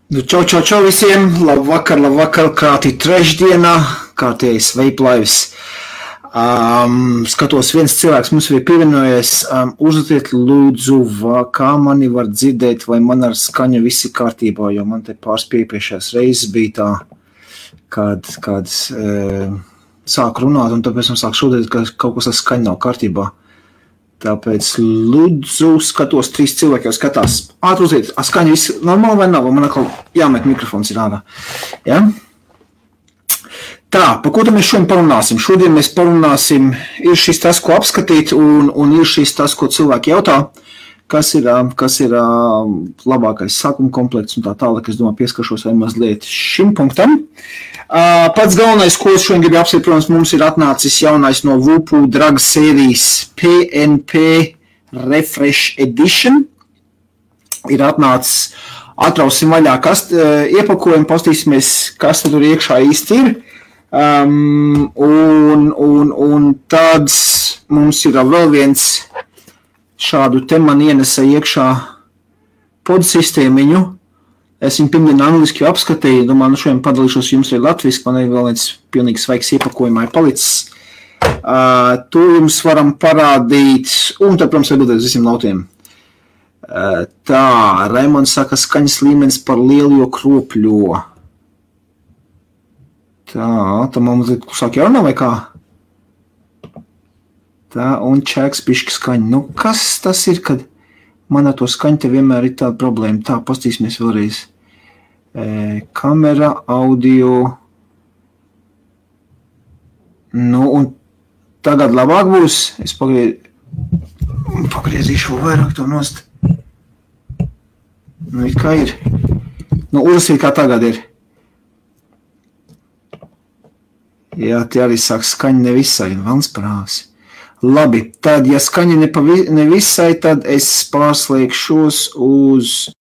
Nu, čau visiem! Labvakar, krātī trešdienā, kārtējais veiplaivs. Skatos, viens cilvēks mums ir pievienojies. Uzlieciet lūdzu, kā mani var dzirdēt, vai man ar skaņu viss ir kārtībā, jo man te pārspiepriekšējās reizes bija tā, kad sāk runāt, un tāpēc man sāk šodien, ka kaut kas ar skaņu nav kārtībā. Tāpēc lūdzu skatos, 3 cilvēki jau skatās. Ātri uziet, skaņa viss normāli vai nav? Man atkal jāmet mikrofons ir ārā. Ja? Tā, par ko tad mēs šodien parunāsim? Šodien mēs parunāsim, ir šis tas, ko apskatīt, un ir šis tas, ko cilvēki jautā, kas ir labākais sākuma komplekts un tā tālāk. Es domāju, pieskaršos vai mazliet šim punktam. Pats galvenais, ko es šodien gribu apsvērt, protams, mums ir atnācis jaunais no Vupu Drag sērijas PNP Refresh Edition. Ir atnācis, atrausim vaļā iepakojumu, pastīsimies, kas tur iekšā īsti ir. Un tad mums ir vēl viens šādu te man ienesa iekšā podsistēmiņu. Es viņu pirmdien angliski apskatīju, domāju, nu šodien padalīšos jums arī latviski, man ir vēl viens pilnīgi svaigs iepakojumā ir palicis. To jums varam parādīt, un tad, protams, atbildēt uz visiem lautiem. Tā, Raimonds saka, skaņas līmenis par lielu, jo kropļo. Tā, tam mums sāk jārunā vai kā? Tā, un čēks pišķi skaņa. Nu, kas tas ir, kad man ar to skaņu te vienmēr ir tāda problēma? Tā, pastīsimies vēlreiz. Kamera, audio. Nu, un tagad labāk būs. Es pagriezīšu vēl vairāk to nost. Nu, it kā ir. Nu, uzlasīt, kā tagad ir. Jā, tie arī sāk skaņa nevisai, vans prāvs. Labi, tad, ja skaņa nevisai, tad es pārslēgšos uz...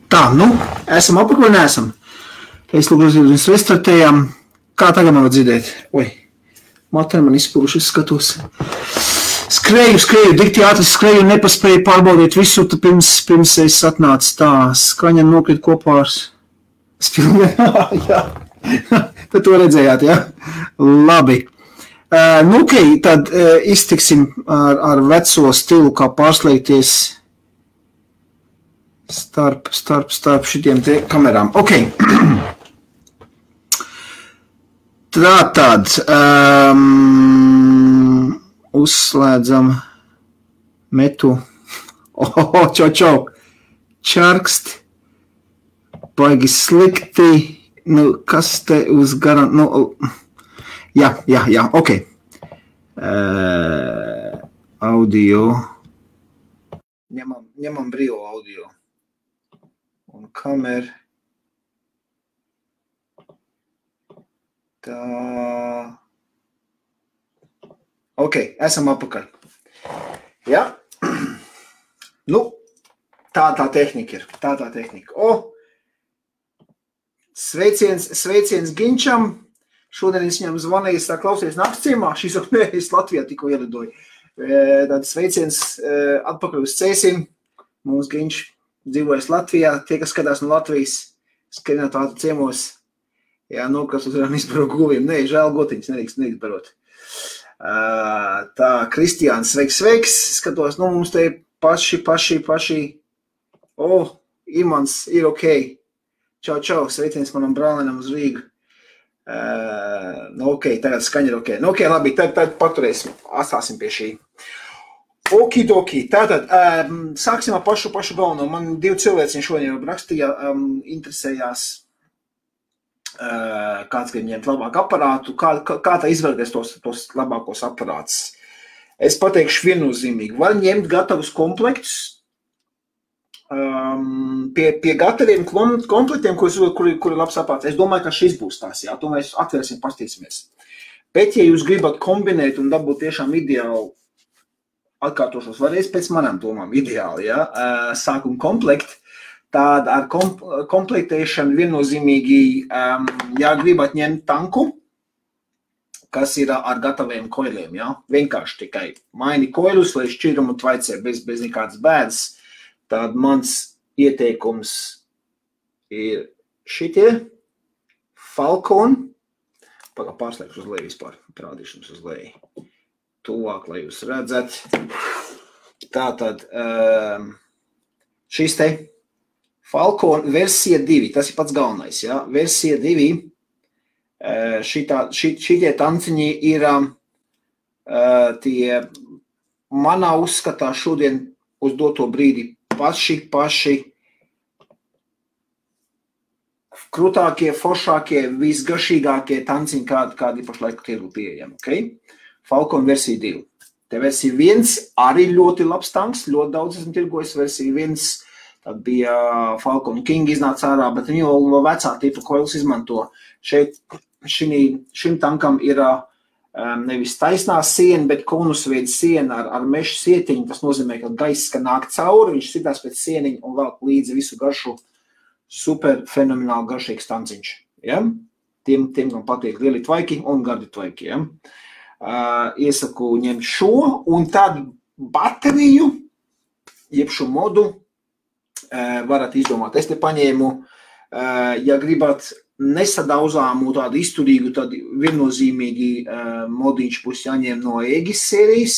Tā, nu, esam apakaļ, neesam. Es lūdzu, mēs restartējām. Kā tagad man var dzirdēt? Oi, materi man izspūruši, es skatos. Skrēju, dikti ātri skrēju un nepaspēju pārbaudīt visu, pirms es atnācu tā. Skaņa nokrit kopā ar spilvien. Jā, tad to redzējāt, jā? Labi. Nu, ok, tad iztiksim ar veco stilu, kā pārslēgties starp šitiem te kamerām. Ok. Tātad uzslēdzam metu. Čau. Čarkst. Baigi slikti. Nu, kas te uz garan... Nu, jā, ok. Audio. Ņemam brīvo audio. Un kameru. Tā. Ok, esam apakaļ. Jā. Nu, tā tehnika ir. Tā tehnika. Sveiciens Ginčam. Šodien es viņam zvanīju, es tā klausies nakts ciemā, šis es Latvijā tikko ielidoju. Tad sveiciens atpakaļ uz Cēsim. Mums Ginč dzīvojas Latvijā. Tie, kas skatās no Latvijas, skrienot ātri ciemos. Jā, nokas uzvarām izbaro guviem. Nē, žēl gotiņas, nedrīkst barot. Tā, Kristiāns, sveiks. Skatos, mums te paši. Imants ir ok. Čau, sveiciens manam brālenam uz Rīgu. Ok, tagad skaņa ir ok. Ok, labi, tad paturēsim, atstāsim pie šī. Okidoki, tātad, sāksim ar pašu galveno. Man 2 cilvēciņi šodien jau rakstīja, interesējās, kāds grib ņemt labāku aparātu, kā tā izvēlēties tos labākos aparātus. Es pateikšu viennozīmīgi, var ņemt gatavus komplektus, pie gataviem komplektiem, kuri labs aparāts. Es domāju, ka šis būs tās, jā, to mēs atvērsim, pastīsimies. Bet, ja jūs gribat kombinēt un dabūt tiešām ideāli, atkārtošos varēs pēc manām domām ideāli, jā, sākuma komplekti, tāda ar komplektēšanu viennozīmīgi, ja gribat ņemt tanku, kas ir ar gataviem koiliem, jā, vienkārši tikai maini koilus, lai šķirumu tvaicē bez nekādas bēdas. Tad mans ieteikums ir šitie Falcon. Pārslēgšu uz leju vispār, parādīšu jums uz leju. Tuvāk, lai jūs redzat. Tātad šis te Falcon versija 2, tas ir pats galvenais, ja? Versija 2, šitie tanciņi ir tie manā uzskatā šodien uz doto brīdi paši krūtākie, foršākie, visgaršīgākie tanciņi, kādi pašlaik tirgu pieejami, ok? Falcon versija 2. Te versija 1 arī ļoti labs tanks, ļoti daudz esmu tirgojis. Versija 1, tad bija Falcon King iznāca ārā, bet viņi jau vecā tipa koils izmanto. Šim tankam ir nevis taisnā siena, bet konusveida siena ar mešu sietiņu. Tas nozīmē, ka gaiss, ka nāk cauri, viņš sitās pēc sieniņu un vēl līdzi visu garšu. Super fenomenāli garšīgs tanciņš. Ja? Tiem, kam patīk lieli tvaiki un gardi tvaiki. Ja? Iesaku ņemt šo un tad bateriju, jeb šo modu, varat izdomāt. Es te paņēmu, ja gribat nesadauzāmu, tādu izturīgu, tad viennozīmīgi modiņš būs jāņem no Aegis sērijas,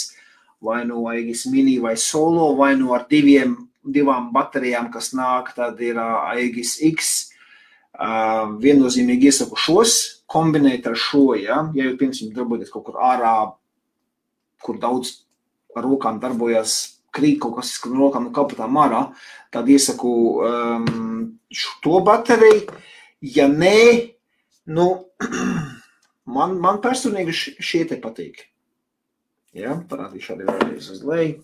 vai no Aegis Mini vai Solo, vai no ar divām baterijām, kas nāk, tad ir Aegis X. Viennozīmīgi iesaku šos, kombinēt ar šo, ja jūs, piemēram, darbojaties kaut kur ārā, kur daudz ar rokām darbojas, krīt kaut kas no rokām no kapatām ārā, tad iesaku to bateriju. Ja nē, man personīgi šie te patīk. Ja, parādīšu arī vēlreiz uz leju.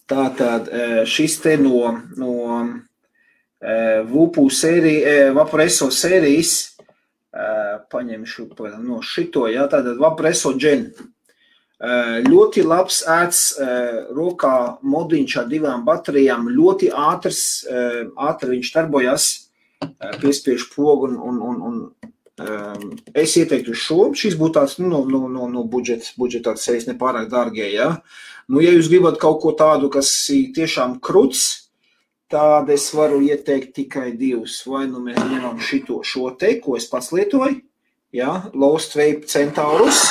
Tātad šis te no Vaporesso sērijas, paņemšu no šito, ja, tātad Vaporesso Gen. Ļoti labs ēts rokā modiņš ar 2 baterijām, ļoti ātri viņš darbojas, piespiež pogu un es ieteiktu šo. Šis būtu tāds no budžeta sērijas nepārāk dārgie, ja. Ja jūs gribat kaut ko tādu, kas ir tiešām kruts, tad es varu ieteikt tikai 2. Vai mēs ņemam šo te, ko es pats lietoju, ja, Lost Vape Centaurus.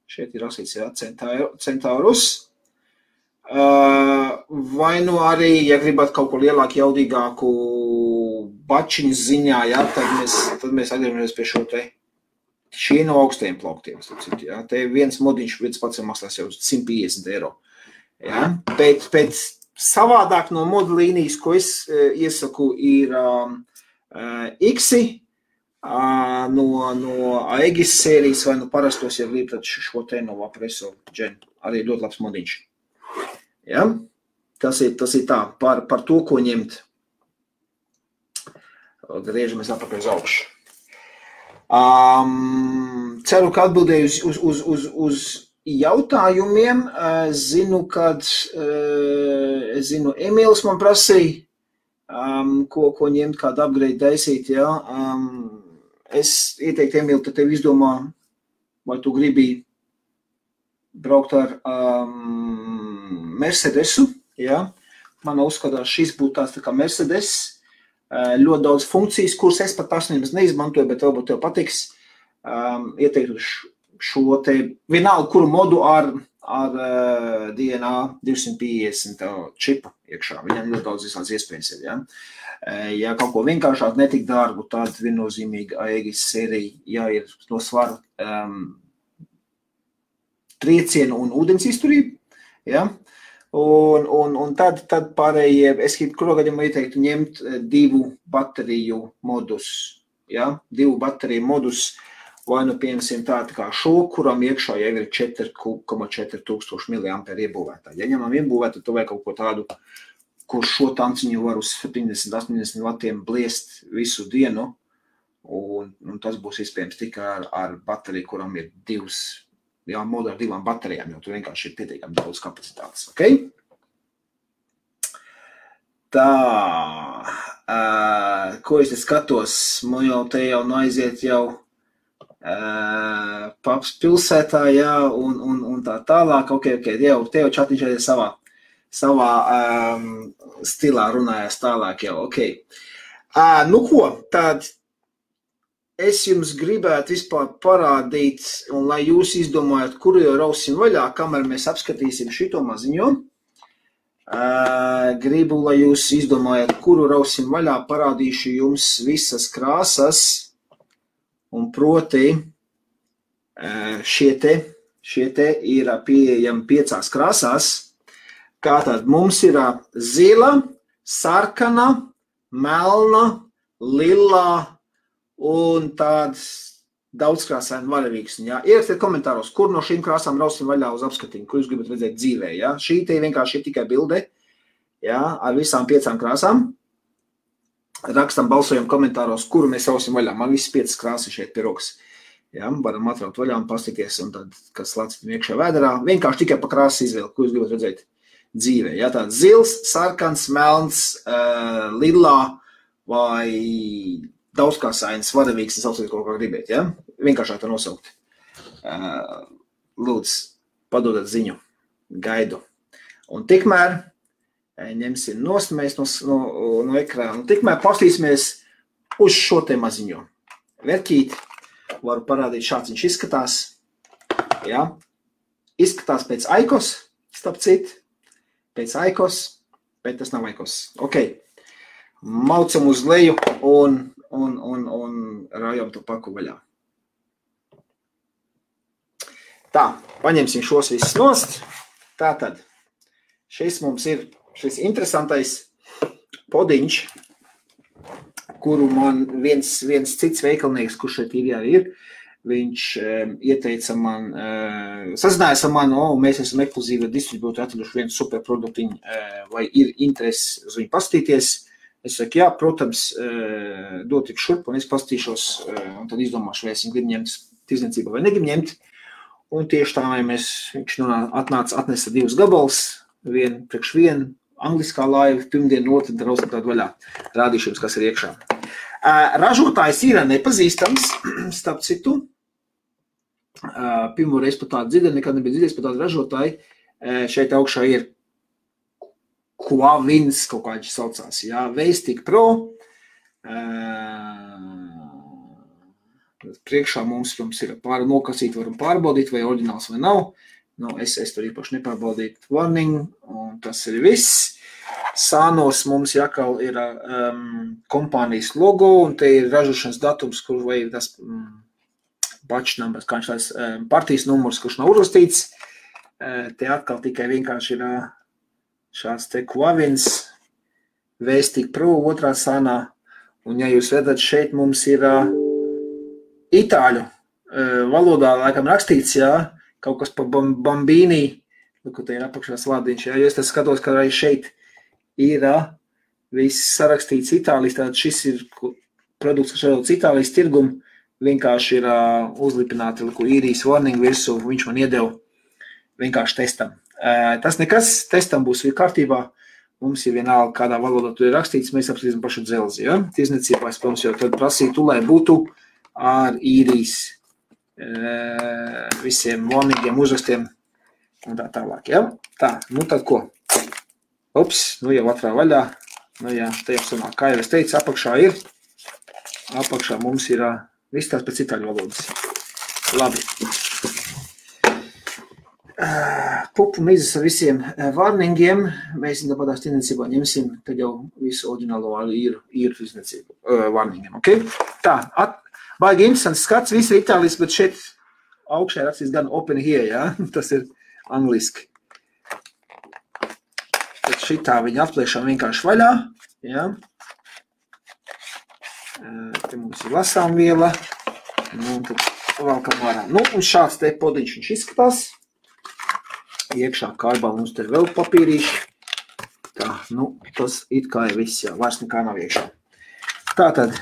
Šeit ir rakstīts, jā, Centaurus. Vai arī, ja gribat kaut ko lielāku, jaudīgāku bačiņas ziņā, jā, tad mēs atgriežamies pie šo te. Šie no augstajiem plauktiem. Jā. Te viens modiņš pats maksās jau 150 €. Jā. Pēc savādāk no modu līnijas, ko es iesaku, ir X-i, no Aegis sērijas vai no parastos, ja grib, tad šo te no Vaporesso Gen. Arī ļoti labs modiņš. Ja? Tas ir tā, par to, ko ņemt. Griežamies atpakaļ uz augšu. Ceru, ka atbildēju uz jautājumiem. Zinu, Emīls man prasīja, ko ņemt, kādu upgrade taisīt, ja. Es ieteiktu, Emīl, tad tev izdomā, vai tu gribi braukt ar Mercedesu, ja. Man uzskatās, šis būtu tāds tā kā Mercedes, ļoti daudz funkcijas, kuras es pat personības neizmantoju, bet varbūt tev patiks. Ieteiktu šo te vienalga, kuru modu ar DNA 250 čipu iekšā. Viņam ļoti daudz visāds iespējas ir, ja. Ja kaut ko vienkāršāk netik dārgu, tad viennozīmīgi Aegis sērija, ja ir no svara triecienu un ūdens izturību, ja. Un tad pārējie, es kurā gadījumā ieteiktu ņemt 2 bateriju modus, ja, 2 bateriju modus, vai nu piemēram tā kā šo, kuram iekšā jau ir 4,4 tūkstoši miliamperi iebūvētā. Ja ņemam iebūvētu, tu vajag kaut ko tādu, kur šo tanciņu var uz 70-80 vatiem bliest visu dienu, un tas būs iespējams tikai ar bateriju, kuram ir 2 modu ar 2 baterijām, jo tu vienkārši ir pietiekami daudz kapacitātes, ok? Tā, ko es te skatos, te jau aiziet jau Paps pilsētā, jā, un tā tālāk, ok, te jau čatiņš arī savā stilā runājās tālāk jau, ok. Nu ko, tad es jums gribētu vispār parādīt, un lai jūs izdomājat, kuru jau rausim vaļā, kamēr mēs apskatīsim šito maziņo. Gribu, lai jūs izdomājat, kuru rausim vaļā, parādīšu jums visas krāsas, un proti šie te ir pieejami 5 krāsās. Kā tad mums ir zila, sarkana, melna, lilā, un tāds daudzkrāsaini varavīksni, jā. Ierakstiet komentāros, kur no šīm krāsām rausim vaļā uz apskatījumu, kur jūs gribat redzēt dzīvē, jā. Šī te vienkārši ir tikai bilde, jā, ar visām 5 krāsām. Rakstam, balsojam komentāros, kuru mēs rausim vaļā. Man visas 5 krāsas šeit pie rokas. Jā, varam atraut vaļā un pastīties, un tad, kas lācit iekšā vēderā, vienkārši tikai pa krāsas izvēli, ko jūs gribat redzēt dzīvē, jā. Tāds zils, sarkans, melns, lilā vai daudzkrāsains varavīgs, sauciet kaut kā gribēt, ja? Vienkāršāk to nosaukt. Lūdzu, padodat ziņu, gaidu. Un tikmēr ņemsim nost mēs no ekrāna. Un tikmēr pastīsimies uz šo te maziņo. Verķīt, varu parādīt, šāds viņš izskatās. Ja? Izskatās pēc Aikos, starp citu. Pēc Aikos, bet tas nav Aikos. Ok, maucam uz leju un rājam to paku vaļā. Tā, paņemsim šos visus nost. Tātad, šis mums ir šis interesantais podiņš, kuru man viens cits veikalnieks, kurš šeit ir, viņš ieteica man, sazinājās ar mani, mēs esam ekskluzīvi distribūtori atraduši vienu superproduktiņu, vai ir interesi uz viņu pastīties. Es saku, jā, protams, dot tik šurp, un es pastīšos, un tad izdomāšu, vai es viņu gribu ņemt tirdzniecībā vai negribu ņemt. Un tieši tā, viņš atnesa 2 gabals, vienu priekš vienu, angliskā laiva, pirmdienu, otru, rausim tādu vaļā. Rādīšu jums, kas ir iekšā. Ražotājs ir nepazīstams, starp citu. Pirmo reizi par tādu dzirdēju, nekad nebija dzirdējis par tādu ražotāju. Šeit augšā ir Quavins, kaut kā viņš saucās, jā, Veistik Pro. Priekšā mums ir nokasīt, varam pārbaudīt, vai oriģināls vai nav. Nu, es tur īpaši nepārbaudītu warning, un tas ir viss. Sānos mums jākal ir kompānijas logo, un te ir ražošanas datums, kur vai tas batch numbers, kā viņš tās partijas numurs, kurš nav uzrakstīts. Te atkal tikai vienkārši ir šāds te Quavins, Veistik Pro, otrā sānā, un ja jūs redzat, šeit mums ir itāļu valodā laikam rakstīts, jā, kaut kas pa Bambīnī, ko te ir apakšā slādiņš, jā, jo es tas skatos, ka arī šeit ir viss sarakstīts Itālijas, tātad šis ir produkts, kas radots Itālijas tirgumu, vienkārši ir uzlipināti īrijas warning virsū, viņš man iedeva vienkārši testam. Tas nekas, testam būs kārtībā, mums ir vienalga, kādā valodā tu ir rakstīts, mēs apskatīsim pašu dzelzi, ja? Tirzniecībā, es, protams, jau tad prasītu, lai būtu ar īrijas visiem warningiem, uzrakstiem un tā tālāk, ja? Tā, nu tad ko? Ups, nu jau atrā vaļā, nu jā, te jau sanāk, kā jau es teicu, apakšā mums ir viss tās pēc itāļu valodas. Labi. Pupu mizas ar visiem warningiem, mēs tāpatās tirdzniecībā ņemsim, tad jau visu oriģinālo īru tirdzniecību warningiem, ok? Tā, baigi interesants skats, viss ir itāliski, bet šeit augšā rakstīs gan open here, ja? Tas ir angliski. Tad šitā viņa atpliešām vienkārši vaļā, ja? Te mums ir lasāmviela, nu, un tad valkam ārā. Nu, un šāds te podiņš viņš izskatās. Iekšā kārbā mums te vēl papīrīši. Tā, nu, tas it kā ir viss, jā, vairs nekā nav iekšā. Tātad,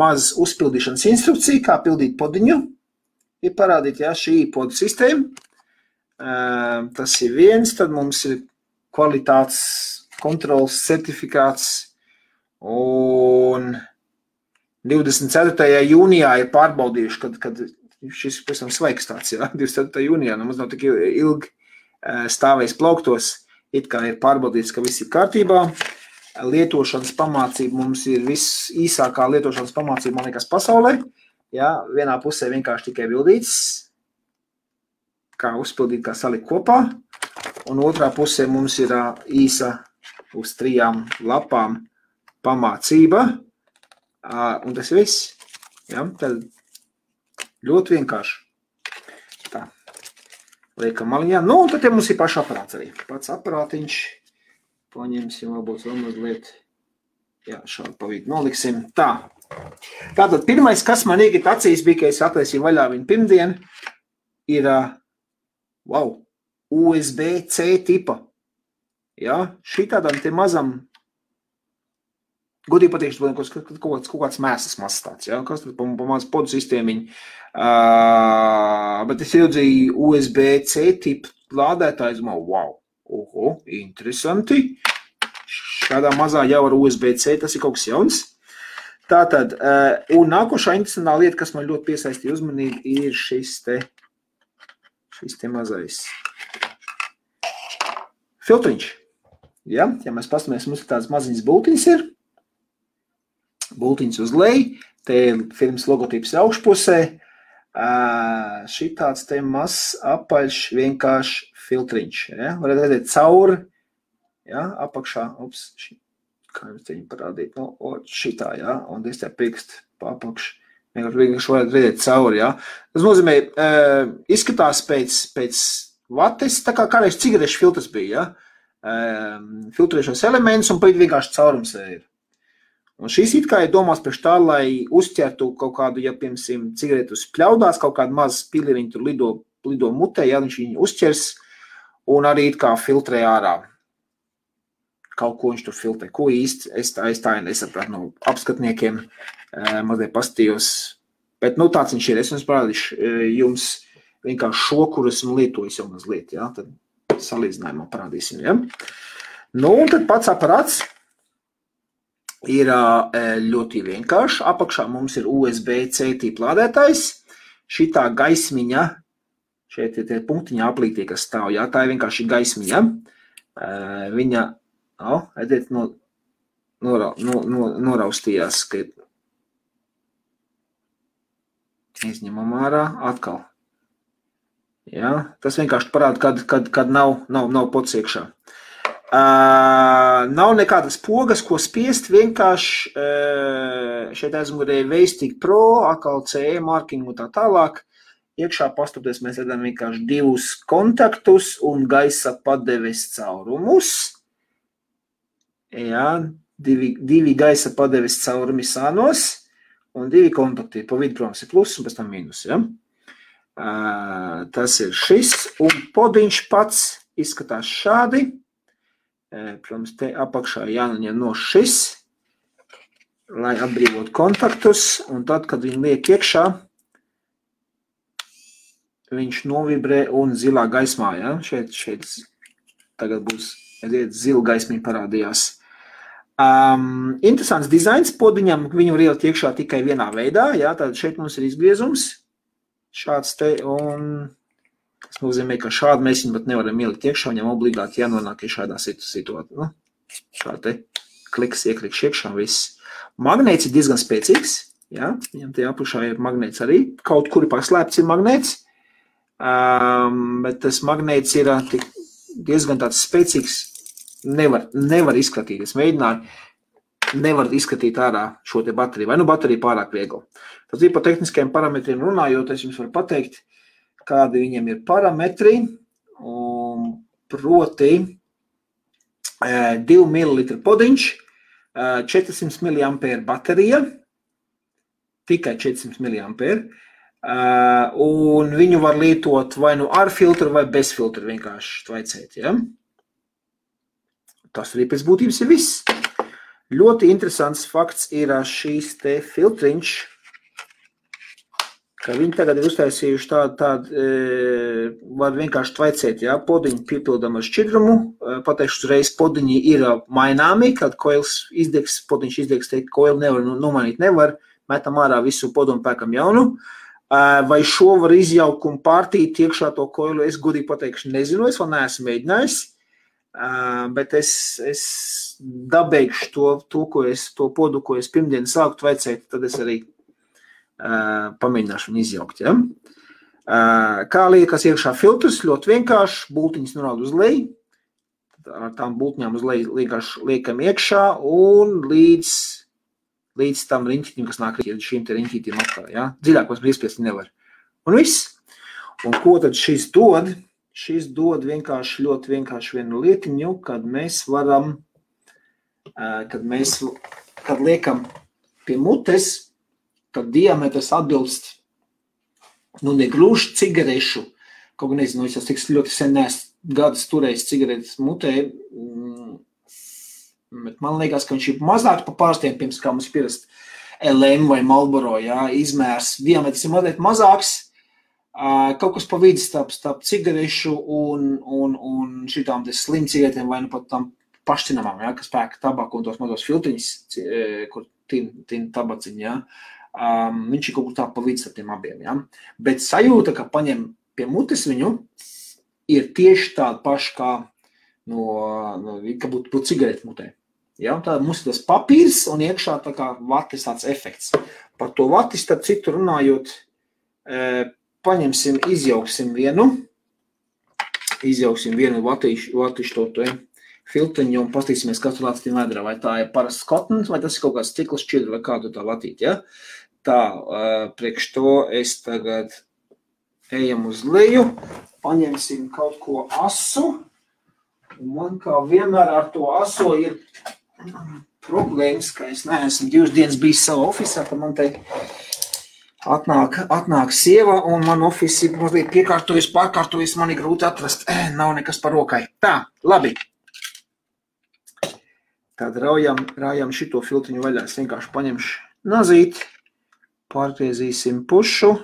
maz uzpildīšanas instrukcija, kā pildīt podiņu. Ir parādīt, jā, šī podu sistēma. Tas ir viens, tad mums ir kvalitātes kontrols certifikāts. Un 24. jūnijā ir pārbaudījuši, kad šis pēc tam svaigs tāds, jā, 24. jūnijā, nu, mums nav tik ilgi stāvējis plauktos, it kā ir pārbaudīts, ka viss ir kārtībā. Lietošanas pamācība mums ir viss īsākā lietošanas pamācība, man liekas, pasaulē. Jā, vienā pusē vienkārši tikai bildīts, kā uzpildīt, kā salikt kopā, un otrā pusē mums ir īsa uz 3 lapām pamācība, un tas ir viss. Jā, tad ļoti vienkārši. Tā. Liekam maliņā. Nu, un tad mums ir paša aparāts arī. Pats aparātiņš. Paņemsim, varbūt vēl mazliet. Jā, šādi pa vidu noliksim. Tā. Tātad pirmais, kas man iegit acīs bija, ka es attaisīju vaļā viņu pirmdien, ir, wow, USB-C tipa. Jā, šitādam te mazam godīgi patīkšu, kaut kāds mēsas mazs tāds, ja? Kas tad pa maz podu sistēmiņu. Bet es iedzīju USB-C tipu lādētājs, wow, interesanti. Šādā mazā jau ar USB-C, tas ir kaut kas jauns. Tātad, un nākošā interesantā lieta, kas man ļoti piesaistīja uzmanību, ir šis te mazais filtriņš. Ja mēs pastamies, mums tāds maziņas bultiņas ir. Bultiņas uz leju, te ir firmas logotips augšpusē, šitāds te mazs apaļš vienkārši filtriņš, ja? Varat redzēt cauri, ja? Apakšā, kā jums teņi parādīt, nu, šitā, ja? Un es te pirkst pa apakšu, vienkārši varat redzēt cauri, ja? Tas nozīmē, izskatās pēc vates, tā kā kādreiz cigarešu filtrs bija, ja? Filtrēšos elements un pa vidu vienkārši caurums ir. Un šīs it kā ir domās priekš tā, lai uzķertu kaut kādu, ja, piemēram, cigaretus pļaudās, kaut kādu mazu pilieriņu tur lido mutē, ja viņš viņu uzķers, un arī it kā filtrē ārā. Kaut ko viņš tur filtrē. Ko īsti es tā nesapratu no apskatniekiem, mazliet pastījos. Bet, nu, tāds viņš ir. Es jums parādīšu jums vienkārši šo, kur esmu lietojis jau mazliet, ja, tad salīdzinājumā parādīsim, ja. Nu, un tad pats aparāts ir ļoti vienkārši. Apakšā mums ir USB-C tipa lādētājs. Šitā gaismiņa, šeit ir tie punktiņā aplītie, kas stāv, jā, tā ir vienkārši gaismiņa. Viņa, redziet, noraustījās, ka izņemam ārā atkal. Jā, tas vienkārši parāda, kad nav pods iekšā. Nav nekādas pogas, ko spiest, vienkārši šeit aizmugurē Veistig Pro, atkal CE marking un tā tālāk. Iekšā pastoties mēs redzam vienkārši 2 kontaktus un gaisa padeves caurumus. Jā, 2 gaisa padeves caurumi sānos un 2 kontakti. Pa vidu, protams, ir plus un pēc tam mīnus, ja? Tas ir šis, un podiņš pats izskatās šādi. Protams, te apakšā jānoņem no šis, lai atbrīvot kontaktus, un tad, kad viņi liek iekšā, viņš novibrē un zilā gaismā, ja? Šeit tagad būs, redziet, zila gaismiņa parādījās. Interesants dizains podiņam, viņu var ielikt iekšā tikai vienā veidā, jā, tātad šeit mums ir izgriezums, šāds te, un tas nozīmē, ka šādi mēs viņu pat nevaram ielikt iekšā, viņam obligāti jānonāk šādā situācijā, nu, šādi te kliks ieklikš iekšā viss. Magnēts ir diezgan spēcīgs, jā, viņam te apakšā ir magnēts arī, kaut kuri paslēpts ir magnēts, bet tas magnēts ir diezgan tāds spēcīgs, nevar izskatīt, es mēģināju, nevar izskatīt ārā šo te bateriju, vai nu baterija pārāk viegla. Tad ir par tehniskajiem parametriem runājot, es jums varu pateikt, kādi viņiem ir parametri, un proti 2 ml podiņš, 400 mAh baterija, tikai 400 mAh, un viņu var lietot vai nu ar filtru vai bez filtru vienkārši tvaicēt, ja? Tas arī pēc būtības ir viss. Ļoti interesants fakts ir šīs te filtriņš, ka viņi tagad ir uztaisījuši tādu var vienkārši tvaicēt, jā, podiņu piepildam ar šķidrumu, pateikšu uzreiz, podiņi ir maināmi, kad koils izdegs, podiņš izdegs, teikt, koili nevar nomainīt, nevar, metam ārā visu podu un pēkam jaunu. Vai šo var izjaukt un pārtīt iekšā to koilu, es godīgi pateikšu, nezinu, es vēl neesmu mēģinājis. Bet es dabēgšu to podu, ko es pirmdien sāku tvaicēt, tad es arī pamēģināšu viņu izjaukt. Ja? Kā liekas iekšā filtrs, ļoti vienkārši, bultiņas norāda uz leju, ar tām bultiņām uz leju vienkārši liekam iekšā un līdz tam riņķitim, kas nāk šīm te riņķītiem atkal. Ja? Dziļākos brīspiesti nevar. Un viss. Un ko tad šis dod? Šis dod vienkārši ļoti vienkārši vienu lietiņu, kad mēs varam, kad liekam pie mutes, tad diametrs atbilst, nu negluži cigarešu, kaut gan nezinu, es jau tik ļoti sen neesmu gadus turējis cigaretes mutē, bet man liekas, ka viņš ir mazāk pa pārstiem, pirms kā mums pierast LM vai Marlboro, jā, izmērs, diametrs ir mazliet mazāks, kaut kas pa vidi starp cigarešu un šitām te slim cigaretēm vai nu pat tam pašcinamām, ja, kas pēka tabaku un tos mazos filtriņus, kur tin tabaciņi, ja. Viņš ir kaut kur tā pa vidi starp tiem abiem, ja. Bet sajūta, ka paņem pie mutes viņu, ir tieši tāda paša kā ka būtu cigareti mutē. Ja, tā mums ir tas papīrs un iekšā tā kā vatis tāds efekts. Par to vatis, tad citu runājot, paņemsim, izjauksim vienu vatišu to filtriņu un pastīsimies, kas tur lāc tiem vēdrā, vai tā ir parasts kotons, vai tas ir kaut kāds cikls šķidri, vai kādu tā vatīt, ja? Tā, priekš to es tagad ejam uz leju, paņemsim kaut ko asu, un man kā vienmēr ar to aso ir problēmas, ka es neesmu 2 dienas bijis savā ofisā, tad man te atnāk sieva, un man ofisi mazliet pārkārtojas, man ir grūti atrast, nav nekas par rokai. Tā, labi. Tad rājam šito filtriņu vaļā, es vienkārši paņemšu nazīt, pārgriezīsim pušu.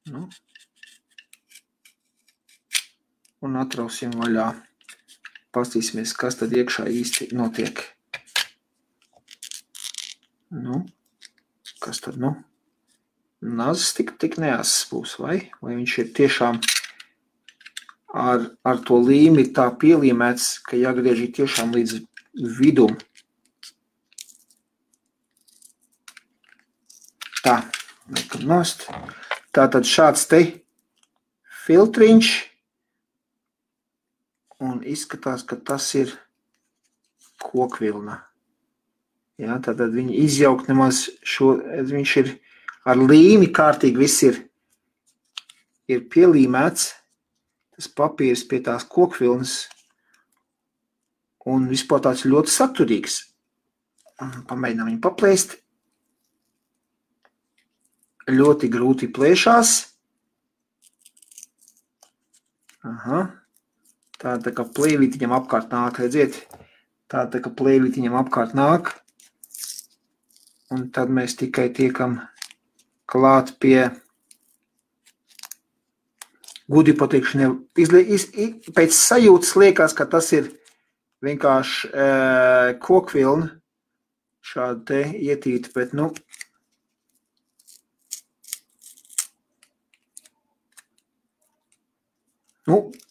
Nu. Un atrausim vaļā. Pastīsimies, kas tad iekšā īsti notiek. Nu. Kas tad, nu? Nazis tik neasas būs, vai viņš ir tiešām ar to līmi tā pielīmēts, ka jāgriež tiešām līdz vidum. Tā, liekam nost. Tātad šāds te filtriņš, un izskatās, ka tas ir kokvilna. Ja, tātad viņi izjaukt nemaz viņš ir ar līmi kārtīgi, viss ir pielīmēts, tas papīrs pie tās kokvilnas, un vispār tāds ļoti saturīgs. Pamēģinām viņu paplēst. Ļoti grūti plēšās. Aha. Tā kā plēvītiņam apkārt nāk, redziet? Tā kā plēvītiņam apkārt nāk. Un tad mēs tikai tiekam klāt pie Gudi pateikšu, pēc sajūtas liekas, ka tas ir vienkārši kokvilna šāda te ietīta, bet,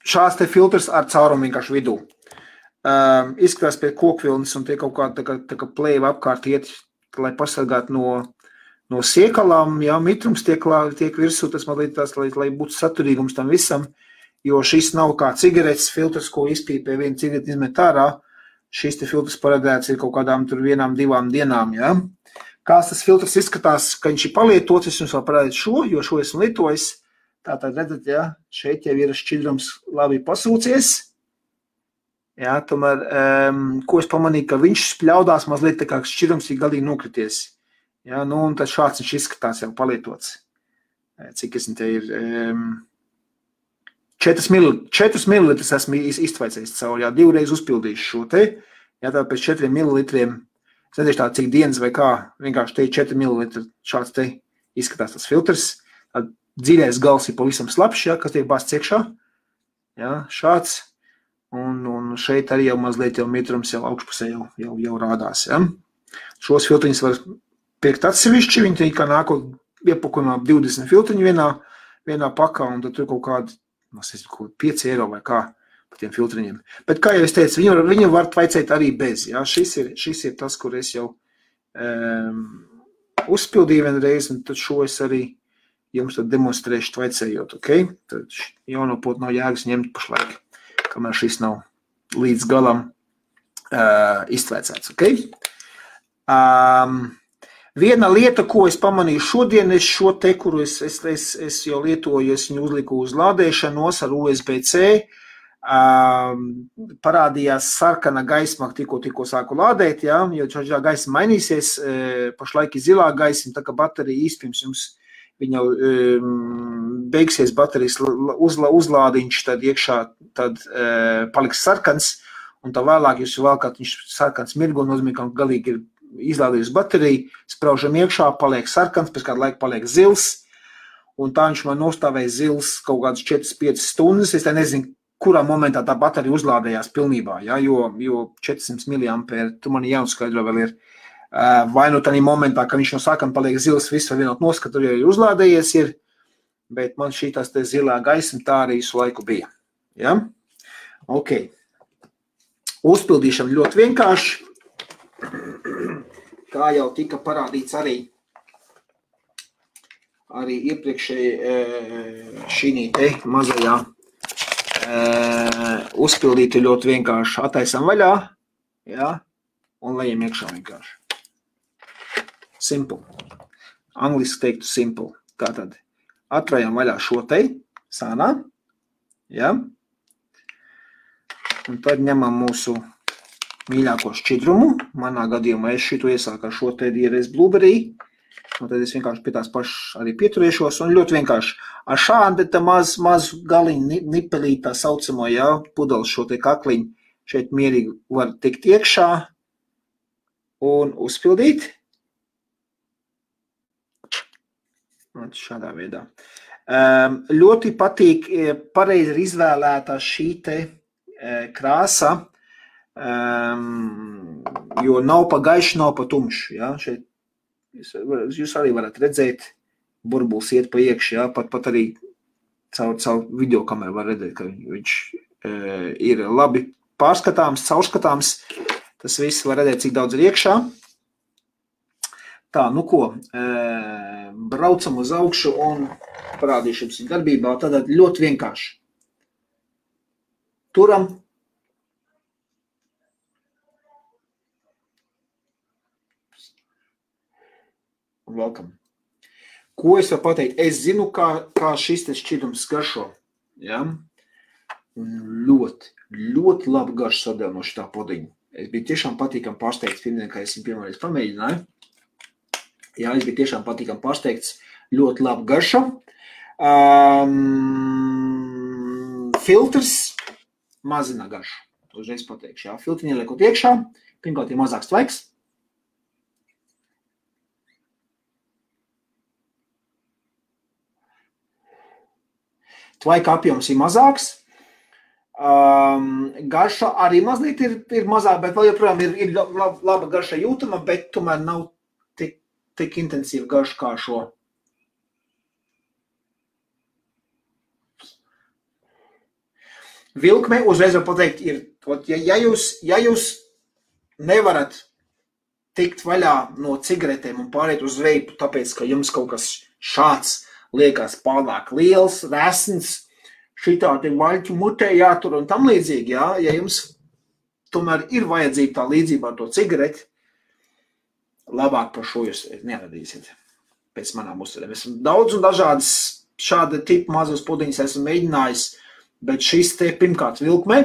šāds te filtrs ar caurumu vienkārši vidū. Izskatās pēc kokvilnas un tie kaut kāda tā kā plēva apkārt iet, lai pasargātu no siekalām, jā, mitrums tiek virsū, tas man liekas, lai būtu saturīgums tam visam, jo šis nav kā cigaretes filtrs, ko izpīpē viena cigareti izmet ārā, šis te filtrs paredzēts ir kaut kādām tur 1-2 dienām, jā. Kāds tas filtrs izskatās, ka viņš ir palietots, es jums vēl parādītu šo, jo šo esmu lietojis, tātad redzat, jā, šeit jau ir šķidrums labi pasūcies. Jā, tomēr, ko es pamanīju, ka viņš spļaudās mazliet tā kā šķidrums ir galīgi nokrities. Jā, un tad šāds viņš izskatās jau palietots. Cik es te ir 4 mililitrus esmu iztvaicējis cauri, jā, 2 reizes uzpildīšu šo te. Jā, tā pēc 4 mililitriem, es nedēļu tā cik dienas vai kā, vienkārši te 4 mililitri šāds te izskatās tas filtrs. Dziļais gals ir pavisam slapšs, jā, kas tiek bāsts iekšā. Jā, šāds. Un šeit arī jau mazliet jau mitrums jau augšpusē jau rādās. Ja? Šos filtriņus var pirkt atsevišķi, viņi kā nākot iepakojumā 20 filtriņu vienā pakā, un tad tur kaut kādi, 5 eiro vai kā par tiem filtriņiem. Bet kā jau es teicu, viņu var tvaicēt arī bez. Ja? Šis ir tas, kur es jau uzpildīju vienreiz, un tad šo es arī jums tad demonstrēšu tvaicējot, ok? Tad jauno potu nav jēgas ņemt pašlaik, kamēr šis nav līdz galam iztvēcēts, ok? Viena lieta, ko es pamanīju šodien, es šo te, kuru es jau lietoju, es viņu uzliku uz lādēšanos ar USB-C, parādījās sarkana gaisma, tikko sāku lādēt, jā, jo šā gaisma mainīsies, pašlaik ir zilā gaisma, tā kā baterija īspirms jums viņa beigsies baterijas uzlādiņš, tad iekšā tad paliks sarkans, un tā vēlāk jūs valkāt, viņš sarkans mirgo, nozīmē, ka galīgi ir izlādījusi bateriju, spraužam iekšā, paliek sarkans, pēc kāda laika paliek zils, un tā viņš man nostāvēja zils kaut kādas 4-5 stundas, es tā nezinu, kurā momentā tā baterija uzlādējās pilnībā, ja, jo 400 mAh, tu man jāuzskaidro vēl ir, vai nu tādā momentā, ka viņš no sākuma paliek zils, viss var vienot noskatu, jau ir uzlādējies ir, bet man šī tās te zilā gaisma tā arī visu laiku bija. Ja? Ok. Uzpildīšana ļoti vienkārši. Kā jau tika parādīts arī iepriekšēji šī te mazajā uzpildītu ļoti vienkārši attaisam vaļā, ja? Un lejam iekšā vienkārši. Simple. Angliski teiktu simple. Tātad atrājam vaļā šo te sānā. Ja? Un tad ņemam mūsu mīļāko šķidrumu. Manā gadījumā es šito iesāku ar šo te DRS Blueberry. Un tad es vienkārši pie tās pašas arī pieturēšos. Un ļoti vienkārši ar šādi te mazu galiņu nipelīt tā saucamo, ja, pudeles šo te kakliņu šeit mierīgi var tikt iekšā un uzpildīt. Šādā veidā. Ļoti patīk pareizi izvēlētā šī te krāsa, jo nav pa gaiši, nav pa tumši. Ja? Šeit jūs arī varat redzēt, burbulis iet pa iekši, ja? pat arī caur videokameru var redzēt, ka viņš ir labi pārskatāms, caurskatāms. Tas viss var redzēt, cik daudz ir iekšā. Tā, nu ko, braucam uz augšu un parādīšu jums darbībā. Tātad ļoti vienkārši. Turam. Un velkam. Ko es varu pateikt? Es zinu, kā šis te šķidrums garšo. Ja? Ļoti labi garš sadēl no šitā podiņa. Es biju tiešām patīkam pārsteigts pirmdien, kad es viņu pirmoreiz pamēģināju. Jā, es biju tiešām patīkam pārsteigts, ļoti labi garša. Filtrs mazina garšu. Uzreiz pateikšu, jā. Filtriņi ieliekot iekšā, pirmkārt ir mazāks tvaiks. Tvaika apjoms ir mazāks. Garša arī mazliet ir mazāk, bet vēl joprojām ir laba garša jūtama, bet tomēr nav tik intensīva garša kā šo. Vilkme, uzreiz var pateikt, ja jūs nevarat tikt vaļā no cigaretēm un pāriet uz veipu, tāpēc, ka jums kaut kas šāds liekas pārāk liels, resns, šitādi vaļķu mutē jātur un tam līdzīgi, jā, ja jums tomēr ir vajadzība tā līdzība ar to cigareti, labāk par šo jūs neradīsiet pēc manām uztverēm. Esmu daudz un dažādas šāda tipa mazos pudiņas esmu mēģinājis, bet šis te pirmkārt vilkme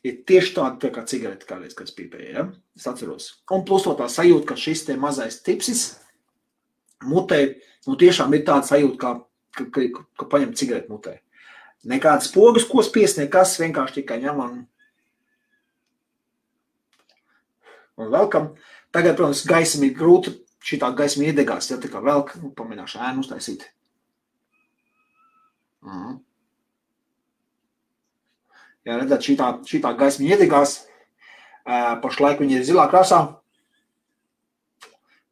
ir tieši tāda tā kā cigarete kādreiz, kad es pīpēju, ja? Es atceros. Un plus to tā sajūta, ka šis te mazais tipsis mutē, tiešām ir tāda sajūta, ka paņem cigareti mutē. Nekādas pogas, ko spies, nekas, vienkārši tikai ņem un velkam. Tagad, protams, gaisam ir grūti, šitā gaisma iedegās, ja tā kā velk, pamēģināšu ēnu uztaisīt. Jā, redzēt, šitā gaisma iedegās, pašlaik viņa ir zilā krāsā,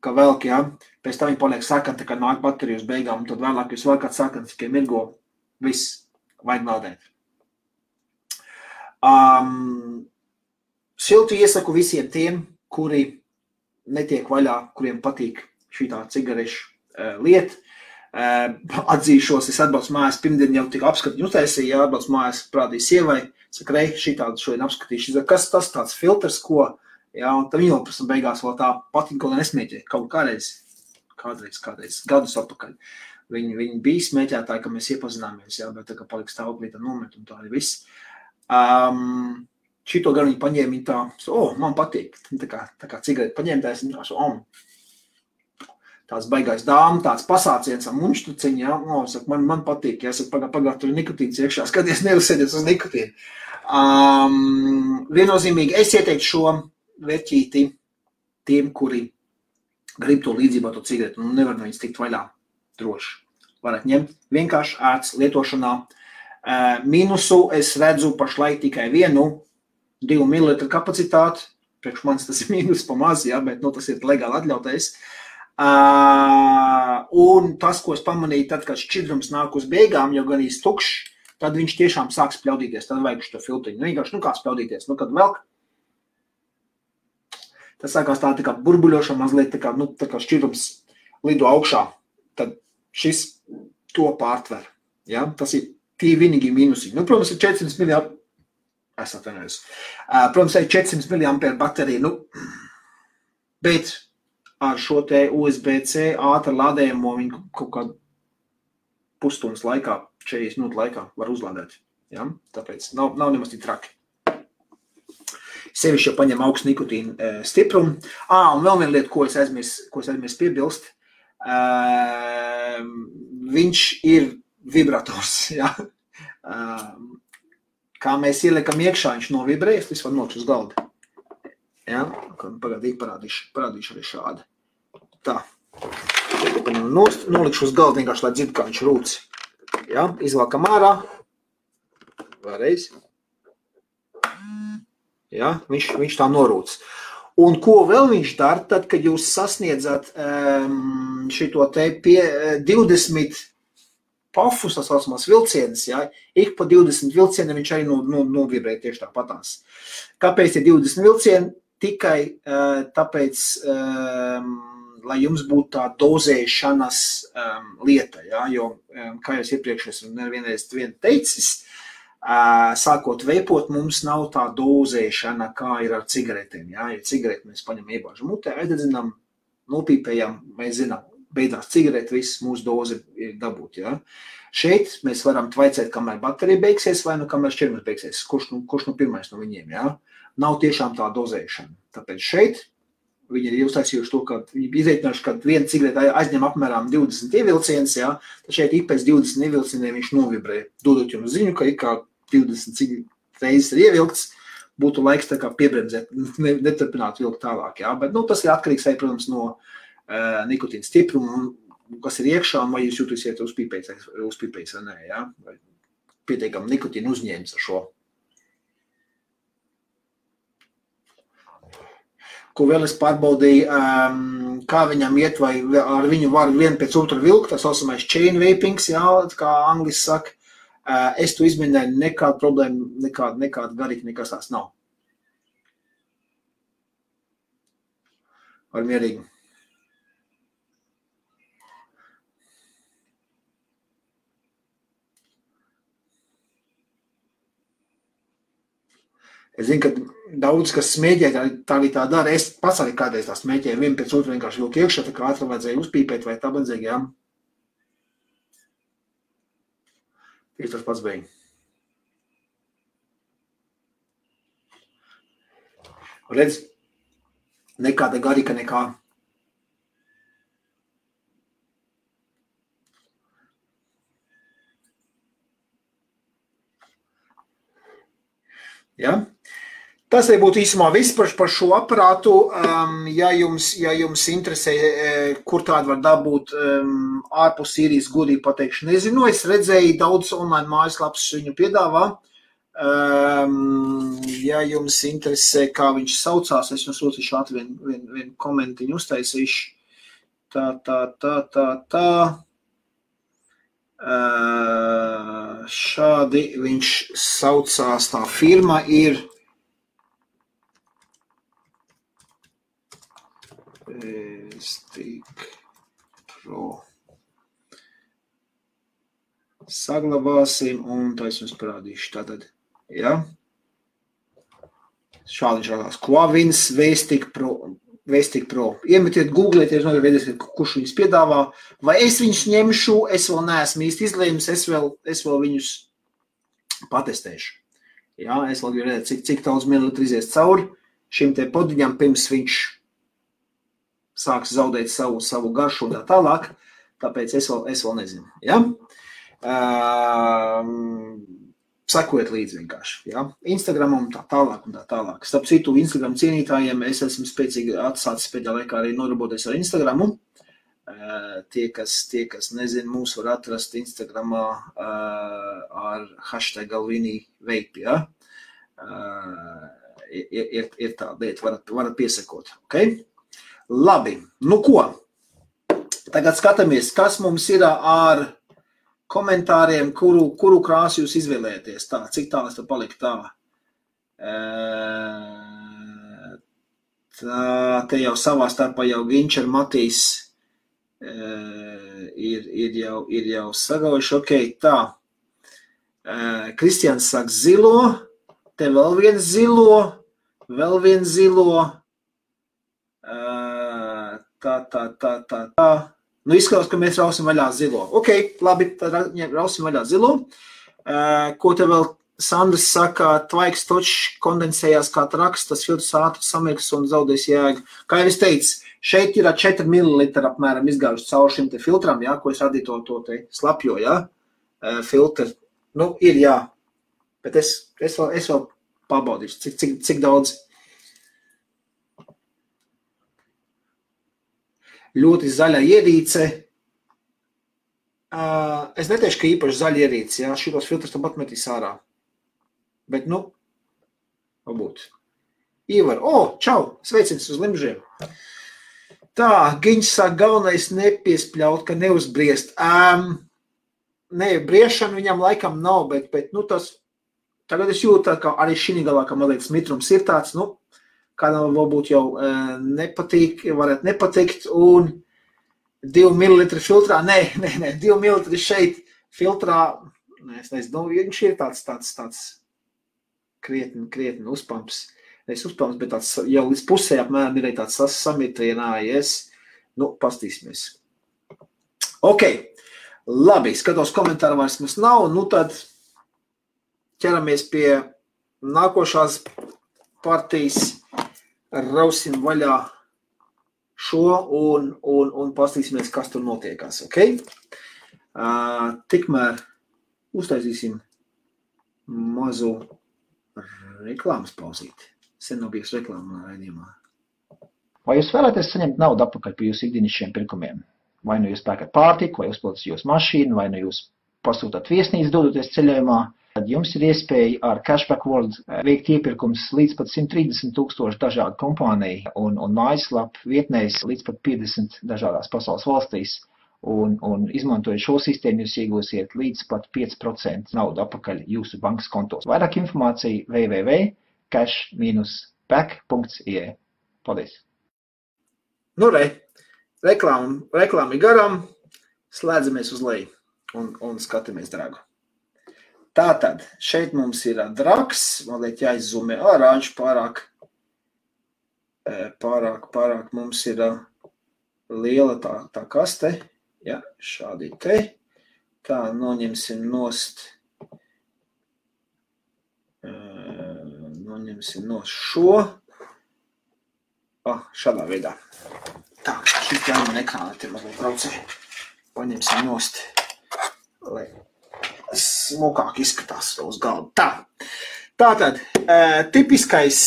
ka velk, ja, pēc tam viņa paliek sakanta, kad nāk baterija uz beigām, un tad vēlāk jūs vēl kāds sakants, tikai mirgo, viss, vajag meldēt. Siltu iesaku visiem tiem, kuri netiek vaļā, kuriem patīk šitā cigarešu lieta. Atzīšos, es atbraucu mājās, pirmdien jau tik apskatiņu uztaisīju, ja atbraucu mājās, prādīju sievai, saka, rei, šitādu šodien apskatīšu, kas tas tāds filtrs, ko, ja, un tad viņa vēl prasam beigās vēl tā patīk, ko nesmēķē, kaut kādreiz, gadus atpakaļ. Viņi bija smēķētāji, ka mēs iepazināmies, ja, bet tā kā palika stāvoklītā nomet un tā arī viss. Šito gan viņi paņēma, viņi tā, man patīk, tā kā cigareti paņēmtājs, viņi tā, tāds baigais dāma, tāds pasāciens ar munštuciņu, ja, saka, man patīk, ja, saka, pagār, tur ir nikotīns iekšā, skaties, nerasēdies uz nikotīnu. Viennozīmīgi, es ieteiktu šo vērķīti tiem, kuri grib to līdzību ar to cigareti, un nevar no viņas tikt vaļā droši. Varat ņemt vienkārši ērts lietošanā. Minusu es redzu pašlaik tikai 2 ml kapacitāti, priekš manis tas ir mīnus pa maz, ja, bet tas ir legāli atļautais. Un tas, ko es pamanīju, tad, kad šķidrums nāk uz beigām, jau gan īsti tukšs, tad viņš tiešām sāk spļaudīties, tad vajag šo filtriņu. Vienkārši, kā spļaudīties, kad velk, tas sākās tā kā burbuļošana mazliet, tā kā šķidrums lido augšā, tad šis to pārtver. Ja? Tas ir tie vienīgi mīnusiņi. Protams, ir 400 mAh. Es atvainojos. Protams, ir 400 mAh baterija, bet ar šo te USB-C ātru lādējumu viņu kaut kādu pusstundas laikā, 40 minūtu laikā var uzlādēt. Ja? Tāpēc nav nemaz tik traki. Sevišķi jau paņem augstu nikotīnu stiprumu. Un vēl viena lieta, ko es aizmirst piebilst, viņš ir vibrators. Ja? Kā mēs ieliekam iekšā, viņš novibrējas, tas var nokļūt uz galda. Ja? Pagādīgi parādīšu arī šādi. Tā. Nolikšu uz galda vienkārši, lai dzird, kā viņš rūc. Ja? Izvalkam ārā. Vēlreiz. Ja? Viņš tā norūc. Un ko vēl viņš dara, tad, kad jūs sasniedzat šito te 20 pafus, tas saucamās vilcienas, ja, ik pa 20 vilcieniem viņš arī novibrē tieši tāpatās. Kāpēc ir 20 vilcieni? Tikai tāpēc, lai jums būtu tā dozēšanas lieta, ja, jo, kā jau iepriekš esmu nevienreiz teicis, sākot veipot, mums nav tā dozēšana, kā ir ar cigaretēm. Ja, ja cigareti mēs paņem iebāžam mutē, aizdedzinām, nopīpējam, mēs zinām, beidzās cigareti, viss mūsu doze ir dabūt. Ja. Šeit mēs varam tvaicēt, kamēr baterija beigsies vai kamēr šķirmas beigsies, kurš pirmais no viņiem. Ja. Nav tiešām tā dozēšana. Tāpēc šeit viņi ir uztaisījuši to, ka viņi izreikinājuši, ka viena cigareta aizņem apmēram 20 ievilcienus, ja, tad šeit ik pēc 20 ievilcieniem viņš novibrē, dodot jums ziņu, ka ik kā 20 reizes ir ievilkts, būtu laiks tā kā piebremzēt, neturpināt vilkt tālāk. Ja. Bet tas ir atkarīgs, protams, no nikotīna stiprumu, kas ir iekšā, un vai jūs jūtīsiet uzpīpējis vai nē, ja? Vai pietiekam nikotīnu uzņēmis ar šo. Ko vēl es pārbaudīju, kā viņam iet, vai ar viņu var vienu pēc otru vilkt, tā saucamais chain vapings, jā, kā angliski saka. Es to izmēģināju, nekāda problēma, nekāda garīga, nekas tās nav. Var mierīgi. Es zinu, ka daudz, kas smēķē, tā arī tā dara. Es pats arī kādreiz tā smēķēju, vienu pēc otru vienkārši vilku iekšā, tā kā ātri vajadzēja uzpīpēt vai tā vajadzēja, jā. Tieši tas pats bija. Redz, nekāda garīga nekā. Ja? Tas arī būtu īsumā viss par šo aparātu. Ja jums interesē, kur tādu var dabūt ārpus Sīrijas, godīgi pateikšu, nezinu. Es redzēju daudz online mājaslapas viņu piedāvā. Ja jums interesē, kā viņš saucās, es jums lūdzu ātri vienu komentiņu uztaisīšu. Tā. Šādi viņš saucās, tā firma ir Stick Pro. Saglabāsim un tā es jums parādīšu. Tātad, ja? Šādi viņš rādās. Quavins V-Stick Pro. Iemetiet, googlieties, novedieties, kurš viņus piedāvā. Vai es viņus ņemšu, es vēl neesmu īsti izlēmis, es vēl viņus patestēšu. Ja? Es vēl gribu redzēt, cik daudz mililitru izies cauri šim te podiņam, pirms viņš sāks zaudēt savu garšu un tā tālāk, tāpēc es vēl nezinu. Ja? Sekojiet līdzi vienkārši. Ja? Instagramam tā tālāk un tā tālāk. Starp citu, Instagram cienītājiem es esmu spēcīgi atsācis pēdējā laikā arī nodarboties ar Instagramu. Tie, kas nezin, mūs var atrast Instagramā ar hashtag Galvini Vape. Ja? Ir tā lieta, varat piesakot. Okay? Labi, nu ko? Tagad skatāmies, kas mums ir ar komentāriem, kuru krāsu jūs izvēlēties. Tā, cik tālu es te paliku tā? Te jau savā starpā jau Ginč ar Matīs ir jau sagaujuši. Ok, tā. Kristians saka zilo, te vēl viens zilo. Tā. Nu, izskatās, ka mēs rausim vaļā zilo. Ok, labi, tad rausim vaļā zilo. Ko te vēl Sandrs saka, tvaiks točs kondensējās kā traks, tas filtrs ātri samirks un zaudēs jēgu. Kā jau es teicu, šeit ir 4 ml apmēram izgājuši caur šim te filtram, ja, ko es radīju to te slapjo, ja, filtru. Nu, ir, jā, bet es vēl pabaudīšu, cik daudz. Ļoti zaļa ierīce. Es neteikšu, ka īpaši zaļa ierīce, jā, šitos filtrus tam atmetīs ārā. Bet, nu, varbūt. Ivar, čau, sveicins uz limžiem. Tā, Giņš saka, galvenais nepiespļaut, ka neuzbriest. Nē, briešana viņam laikam nav, bet nu tas, tagad es jūtu, ka arī šī galā, ka mazliet smitrums ir tāds, nu, kādam varbūt jau nepatīk, varētu nepatikt, un 2 ml filtrā, nē, 2 ml šeit filtrā, es nezinu, viņš ir tāds krietni uzpamps, nevis uzpamps, bet tāds jau līdz pusē apmēram ir tāds samitrinājies, nu, pastīsimies. Ok, labi, skatos komentāru vairs mums nav, nu tad ķeramies pie nākošās partijas. Rausim vaļā šo un pastīsimies, kas tur notiekās, ok? Tikmēr uztaisīsim mazu reklāmas pauzīti. Sen nav bijis reklāma raidījumā. Vai jūs vēlaties saņemt naudu atpakaļ par jūsu ikdienišķiem pirkumiem? Vai nu jūs pērkat pārtiku, vai uzpildat jūsu mašīnu, vai nu jūs pasūtāt viesnīcu dodoties ceļojumā, tad jums ir iespēja ar Cashback World veikt iepirkums līdz pat 130,000 dažādu kompāniju un mājaslapu vietnēs līdz pat 50 dažādās pasaules valstīs. Un izmantojot šo sistēmu, jūs iegūsiet līdz pat 5% naudu atpakaļ jūsu bankas kontos. Vairāk informācija www.cash-back.ie. Paldies! Nu, reklāmi garām, slēdzamies uz leju un skatāmies dragu. Tātad, šeit mums ir drags, mazliet jāizzumē ārāņš pārāk mums ir liela tā kaste. Ja, šādi te. Tā, noņemsim nost šo. Šādā veidā. Tā, šis jāman ekrāna te mazliet braucē. Paņemsim nost, lai smukāk izskatās uz galdu. Tā. Tātad, tipiskais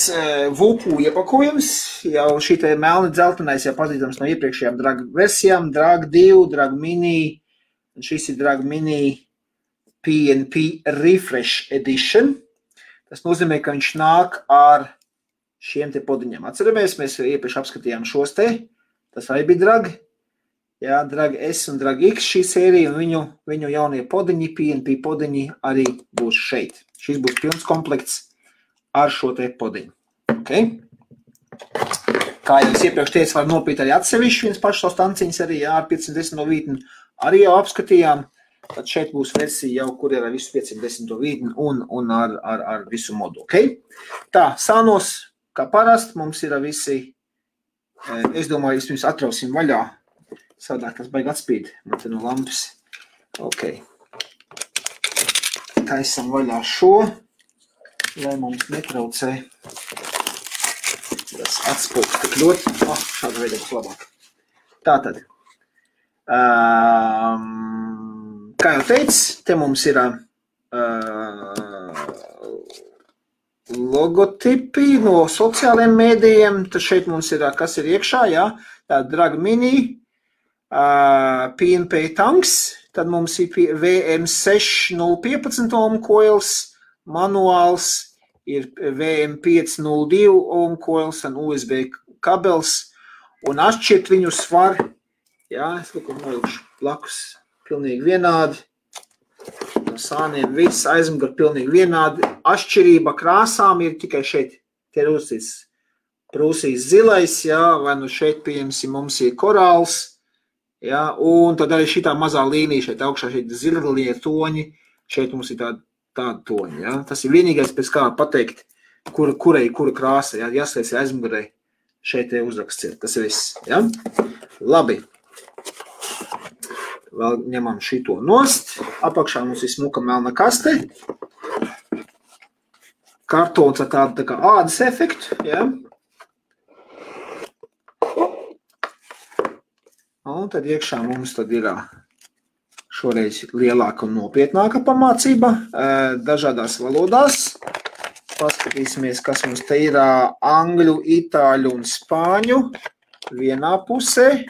VUPU iepakojums, jau šī te melni dzeltenais jau pazīstams no iepriekšējām drag versijām, drag 2, drag mini, un šis ir drag mini PNP Refresh Edition. Tas nozīmē, ka viņš nāk ar šiem te podiņiem. Atceramies, mēs iepriekš apskatījām šos te, tas arī bija drag, jā, drag S un drag X šī sērija, un viņu jaunie podiņi, PNP podiņi arī būs šeit. Šis būs pilns komplekts ar šo te podiņu. Okay? Kā jau es iepriekš teicu, var nopīt arī atsevišķi viens pašs savu stanciņas arī ar 510 vītni. Arī jau apskatījām. Tad šeit būs versija jau, kur ir ar visu 510 vītni un ar visu modu. Okay? Tā, sānos, kā parasti, mums ir visi, es domāju, vispirms atrausim vaļā. Savādāk tas baigi atspīd. Man te no lampas. Okay. Taisam vaļā šo, lai mums netraucē tas atspūks tik ļoti. Šāda veida būs labāk. Tātad, kā jau teicu, te mums ir logotipi no sociālajiem mēdījiem. Tad šeit mums ir, kas ir iekšā, jā, tā drag mini, PNP tanks. Tad mums ir VM6015 ohm coils, manuāls, ir VM502 ohm coils un USB kabels, un atšķirt viņus var, jā, es kaut nolikšu blakus, pilnīgi vienādi, no sāniem viss aizmuguri pilnīgi vienādi, atšķirība krāsām ir tikai šeit, te ir uzcīts prūsīs zilais, jā, vai nu šeit, pieņemsim, mums ir korāls, ja, un tad arī šitā mazā līnija šeit augšā, šeit zilie toņi, šeit mums ir tāda toņi, ja. Tas ir vienīgais pēc kā pateikt, kura krāsa, ja, jāslēdz aizmugurē, šeit uzraksts ir, tas ir viss, ja. Labi, vēl ņemam šito nost, apakšā mums ir smuka melna kaste, kartons ar tādu tā kā ādas efektu, ja. Un tad iekšā mums tad ir šoreiz lielāka un nopietnāka pamācība dažādās valodās. Paskatīsimies, kas mums te ir angļu, itāļu un spāņu vienā pusē.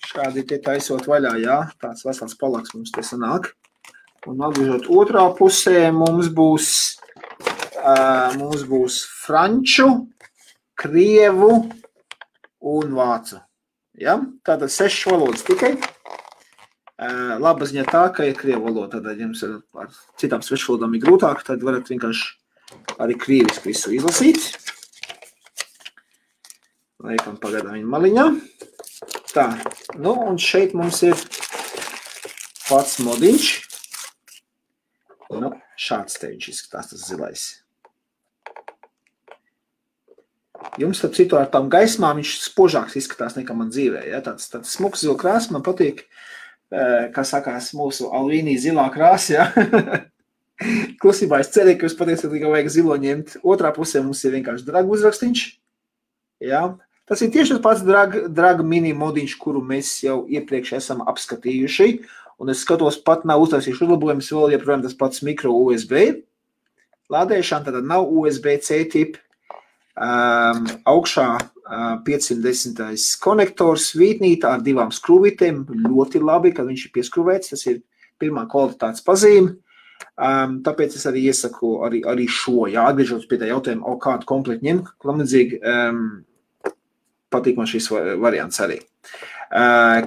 Šādi te taisot vaļā, jā, tāds vesels palaks mums te sanāk. Un atgriežot otrā pusē mums būs franču, krievu un vācu. Ja? Tātad 6 valodas tikai. Laba ziņa tā, ka ir krievu valoda, tad jums ar citām svešvalodām ir grūtāk, tad varat vienkārši arī krieviski visu izlasīt. Laikam pagaidām viņa maliņā. Tā, nu un šeit mums ir pats modiņš. Nu, šāds te viņš izskatās tas zilais. Jums, starp citu, ar tām gaismām viņš spožāks izskatās nekā man dzīvē. Ja? Tāds smuks zila krāsa man patīk, kā sakās mūsu Alvīnī zilā krāsa. Ja? Klusībā es cerēju, ka jūs patiesībā tikai vajag zilo ņemt. Otrā pusē mums ir vienkārši drag uzrakstīņš. Ja? Tas ir tieši tas pats drag mini modiņš, kuru mēs jau iepriekš esam apskatījuši. Un es skatos, pat nav uztaisījuši uzlabojumus, vēl joprojām tas pats mikro USB. Lādēšana tad nav USB-C tipa. Augšā 510. konektors vītnītā ar 2 skrūvītēm, ļoti labi, kad viņš ir pieskrūvēts, tas ir pirmā kvalitātes pazīme. Tāpēc es arī iesaku arī šo, atgriežot pie tā jautājuma, kādu komplektu ņem, klamadzīgi, patīk man šis variants arī.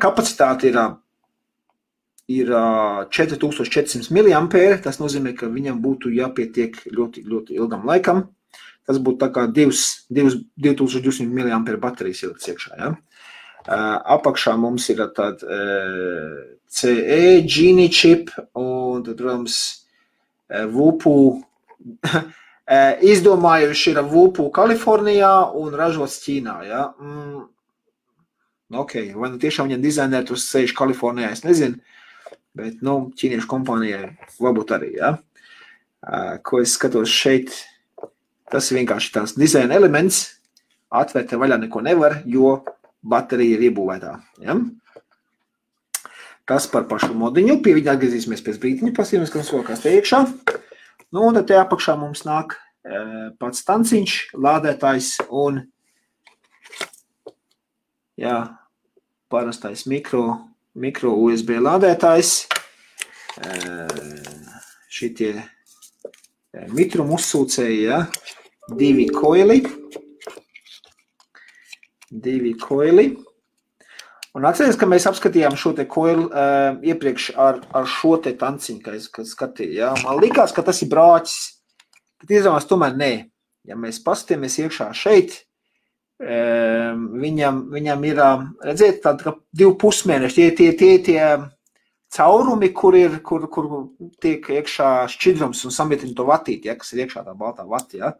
Kapacitāte ir 4400 mAh, tas nozīmē, ka viņam būtu jāpietiek ļoti, ļoti ilgam laikam. Tas būtu tā kā 2200 mAh baterijas ielikts iekšā. Ja? Apakšā mums ir tāda CE, Genie chip un tad, protams, Vupu. Izdomājuši ir Vupu Kalifornijā un ražots Ķīnā. Ja? Ok, vai nu tiešām viņam dizainēri tur sēž Kalifornijā, es nezinu, bet, ķīniešu kompānijai varbūt arī, ja? Ko es skatos šeit, tas ir vienkārši tās dizaina elements, atvērt vaļā neko nevar, jo baterija ir iebūvētā, ja? Tas par pašu modiņu, pie viņa atgriezīsimies pēc brītiņa, pasīmies, ka mums vēl kāds te iekšā. Un tad te apakšā mums nāk pats tanciņš, lādētājs un parastais mikro USB lādētājs. Šitie mitrumu uzsūcēji, 2 koili. Un atceries, ka mēs apskatījām šo te koilu iepriekš ar šo te tanciņu, kad skatīju. Ja? Man likās, ka tas ir brāķis, bet izrādās tomēr nē. Ja mēs paskatāmies iekšā šeit, viņam ir, redziet, tāda kā 2 pusmēneši, tie caurumi, kur tiek iekšā šķidrums un samietina to vatīti, ja? Kas ir iekšā tā baltā vati. Ja?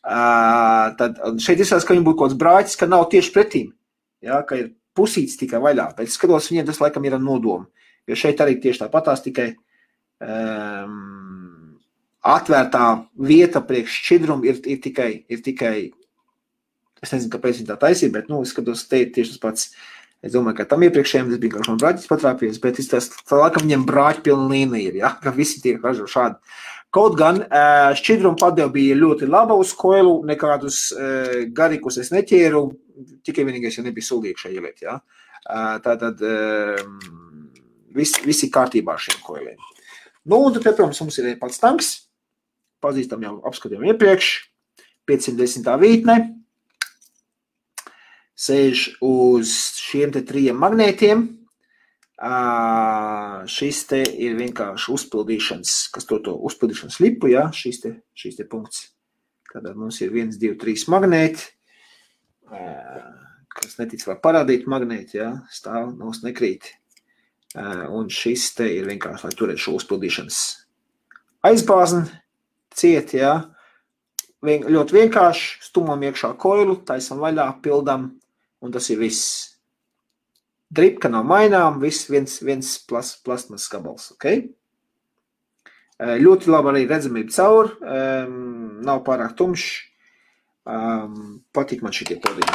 Tad šeit izsās, ka viņam būtu kaut kāds brāķis, ka nav tieši pretīm, ja? Ka ir pusīts tikai vaļā, bet skatos, viņiem tas laikam ir ar nodomu, jo šeit arī tieši tāpatās tikai atvērtā vieta priekš šķidrumu ir tikai, es nezinu, kāpēc viņi tā taisīja, bet, es skatos, te tieši tas pats, es domāju, ka tam iepriekšējiem tas bija kaut man brāķis patrāpies, bet tā laikam viņiem brāķi pilna līnija ir, ja, ka visi tiek ražo šādi. Kaut gan šķidrumu padeva bija ļoti laba uz koilu, nekādus garīkus es neķēru, tikai vienīgais, ja nebija suli iekšā ieliet, ja. Tātad visi kārtībā ar šiem koiliem. Un tad, protams, mums ir pats tanks, pazīstam jau apskatījām iepriekš, 510. vītne, sēž uz šiem te 3 magnētiem. Šis te ir vienkārši uzpildīšanas, kas to uzpildīšanas lipu, ja, šis te punkts. Tātad mums ir 1, 2, 3 magnēti, kas netic var parādīt magnēti, ja, stāv, nos nekrīt. Un šis te ir vienkārši, lai turētu šo uzpildīšanas aizbāzni ciet, ja. Ļoti vienkārši, stumam iekšā koilu, taisam vaļā, pildam, un tas ir viss. Dripka nav mainām, viens plastmasas gabals, ok? Ļoti labi arī redzamība caur, nav pārāk tumšs, patīk man šitie podiņi.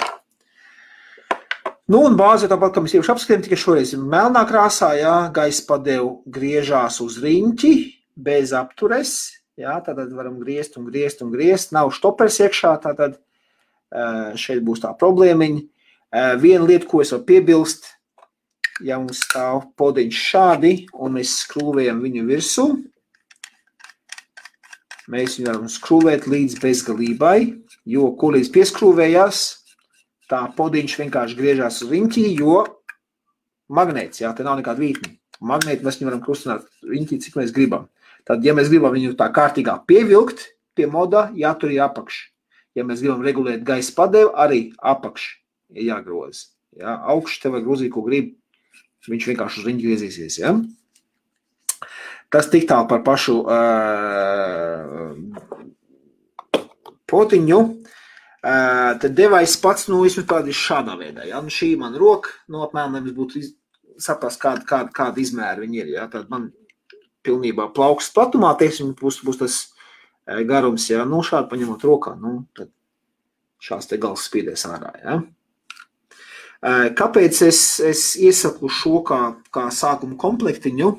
Un bāze tāpat, kā mēs iepriekš apskatījām, tikai šoreiz ir melnā krāsā, ja, gaisa padevu griežās uz riņķi, bez aptures, ja, tātad varam griezt, nav štopers iekšā, tātad šeit būs tā problēmiņa. Viena lieta, ko es varu piebilst, ja mums stāv podiņš šādi, un mēs skrūvējam viņu virsū, mēs viņu varam skrūvēt līdz bezgalībai, jo ko līdz pieskrūvējās, tā podiņš vienkārši griežās uz riņķī, jo magnēts, jā, te nav nekāda vītni. Magnēti mēs viņu varam kustināt riņķī, cik mēs gribam. Tad, ja mēs gribam viņu tā kārtīgā pievilkt pie moda, jātur ir apakš. Ja mēs gribam regulēt gaisa padevu, arī apakš ir jāgroz. Jā, augš te var grozīt, ko grib, viņš vienkārši uz riņķi griezīsies, ja? Tas tik tālu par pašu potiņu. Tad devais pats, vismaz tādi šādā veidā, ja? Šī man roka, apmēram, lai mums būtu saprast, kāda izmēra viņi ir, ja? Tad man pilnībā plauks platumā, teiksim, būs tas garums, ja? Šādi paņemot rokā, tad šās te gals spīdēs ārā, ja? Kāpēc es iesaku šo kā sākuma komplektiņu?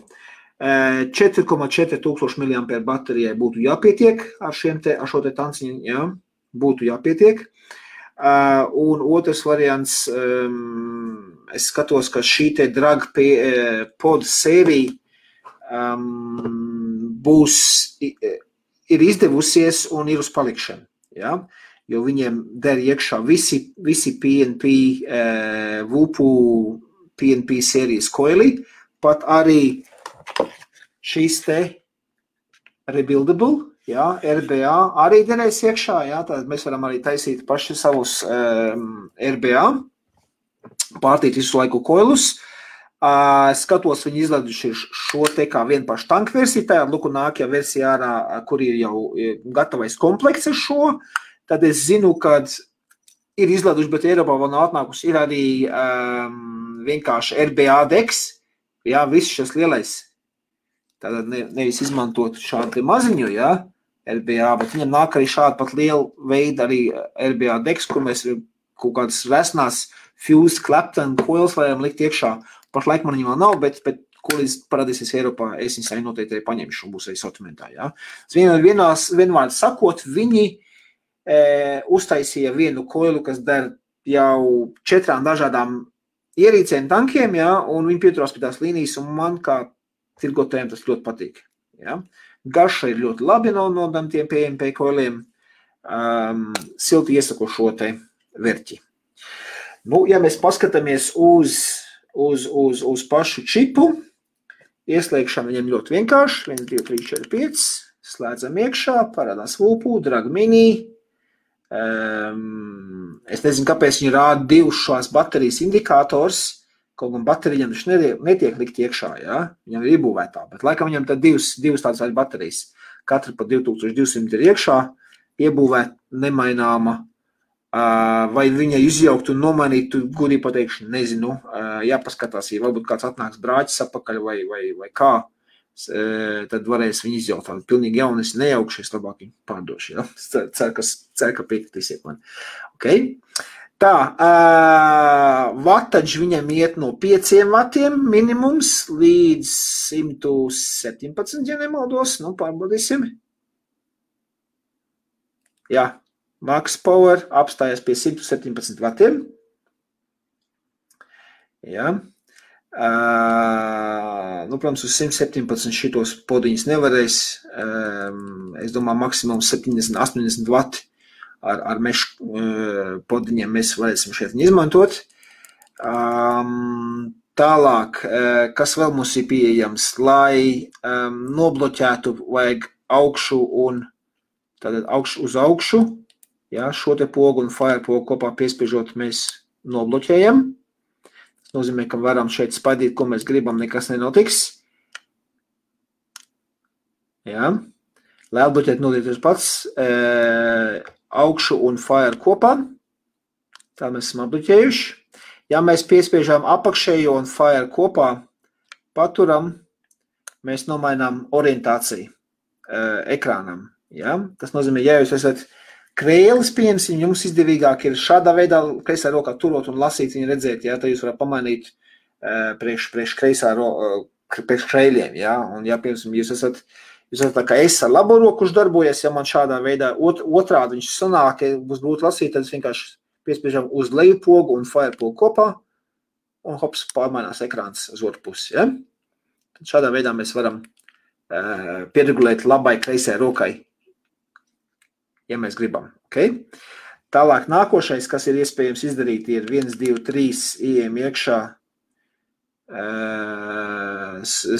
4,4 tūkstoši mAh baterijai būtu jāpietiek ar šo te tanciņu, ja? būtu jāpietiek. Un otrs variants, es skatos, ka šī te drag pod sērija ir izdevusies un ir uz palikšanu, ja? Jo viņiem der iekšā visi PNP, VUPU PNP sērijas koili, pat arī šīs te rebuildable, ja, RBA arī derēs iekšā, ja, tad mēs varam arī taisīt paši savus RBA, pārtīt visu laiku koilus. Skatos, viņi izlaiduši šo te kā vienu pašu tanku versiju, tā luku nākajā versijā ārā, kur ir jau gatavais komplekts ar šo, tad es zinu, kad ir izlaiduši, bet Eiropā vēl nav atnākusi, ir arī vienkārši RBA deks, jā, viss šis lielais, tātad nevis izmantot šādu maziņu, jā, RBA, bet viņam nāk arī šādi pat liela veida arī RBA deks, kur mēs kaut kādas resnās fused Clapton coils varam likt iekšā. Pašlaik man viņa vēl nav, bet kur parādīsies Eiropā, es viņas arī noteikti paņemšu un būs arī sortimentā, jā. Vienvārds sakot, viņi uztaisīja vienu koilu, kas der jau 4 dažādām ierīcēm tankiem, jā, un viņi pieturās pie tās līnijas, un man kā tirgotājiem tas ļoti patīk, jā. Garša ir ļoti labi no tiem PMP koiliem, silti iesaku šo te verķi. Nu, ja mēs paskatāmies uz pašu čipu, ieslēgšana viņam ļoti vienkārši, 1, 2, 3, 4, 5, slēdzam iekšā, parādās VUPU, drag mini, es nezinu, kāpēc viņi rāda 2 šās baterijas indikators, kaut gan baterijam viņš netiek likt iekšā, ja? Viņam ir iebūvētā, bet laikam viņam tad 2 tādas baterijas, katra pa 2200 ir iekšā, iebūvēt nemaināma, vai viņa izjaukt un nomainīt, gudī pateikšu, nezinu, jāpaskatās, ja varbūt kāds atnāks brāķis apakaļ vai kā, tad varēs viņu izjaukt. Pilnīgi jauni, es nejaukšies, labāk viņu pārdošu, ja? Cer, ka piekritīsiet man. Okay. Tā, vataģi viņam iet no 5 vatiem minimums līdz 117, ja nemaldos, nu pārbaudīsim. Jā. Max Power apstājas pie 117 vatiem. Jā. Nu, protams, uz 117 šitos podiņus nevarēs. Es domāju, maksimums 70-80 vati ar mešu podiņiem mēs varēsim šeit izmantot. Tālāk, kas vēl mums ir pieejams, lai nobloķētu vajag augšu un tātad augšu uz augšu. Jā, šo te pogu un fire pogu kopā piespiežot mēs nobloķējam. Tas nozīmē, ka varam šeit spaidīt, ko mēs gribam, nekas nenotiks. Jā. Lai atbloķēt nodieties pats augšu un fire kopā. Tā mēs esam atbloķējuši. Ja mēs piespiežām apakšējo un fire kopā, paturam, mēs nomainām orientāciju ekrānam. Jā. Tas nozīmē, ja jūs esat krēlis, pieņemsim, jums izdevīgāk ir šādā veidā kreisā rokā turot un lasīt viņu redzēt, jā, tad jūs varat pamainīt priekš krēļiem, jā, un ja, piemēram, jūs esat tā kā es ar labo roku, kurš darbojas, ja man šādā veidā otrādi viņš sanāk, ja būs grūti lasīt, tad es vienkārši piespiežam uz leju pogu un fire pogu kopā, un hops, pārmainās ekrāns uz otru pusi, ja. Tad šādā veidā mēs varam pieregulēt labai kreisai rokai, ja mēs gribam. Okay? Tālāk nākošais, kas ir iespējams izdarīt, ir 1, 2, 3 ieejam iekšā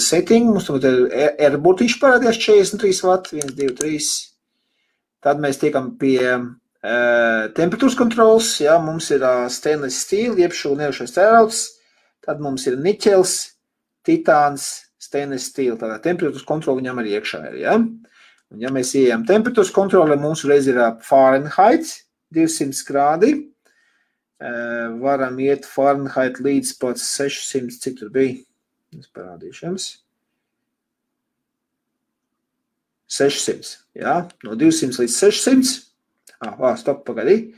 setting. Mums ir airbotīši parādījās 43 vati, 1, 2, 3. Tad mēs tiekam pie temperatūras kontrols. Ja? Mums ir stainless steel, jeb šo nerušais tērauds. Tad mums ir niķels, titāns, stainless steel. Tātad temperatūras kontrola viņam arī iekšā ir. Ja? Un ja mēs ieejam temperatūras kontrole, mums reiz ir Fahrenheit, 200 grādi. Varam iet Fahrenheit līdz pat 600, cik tur bija? Es parādīšu jums. 600, jā, no 200 līdz 600. Stop, pagaidī.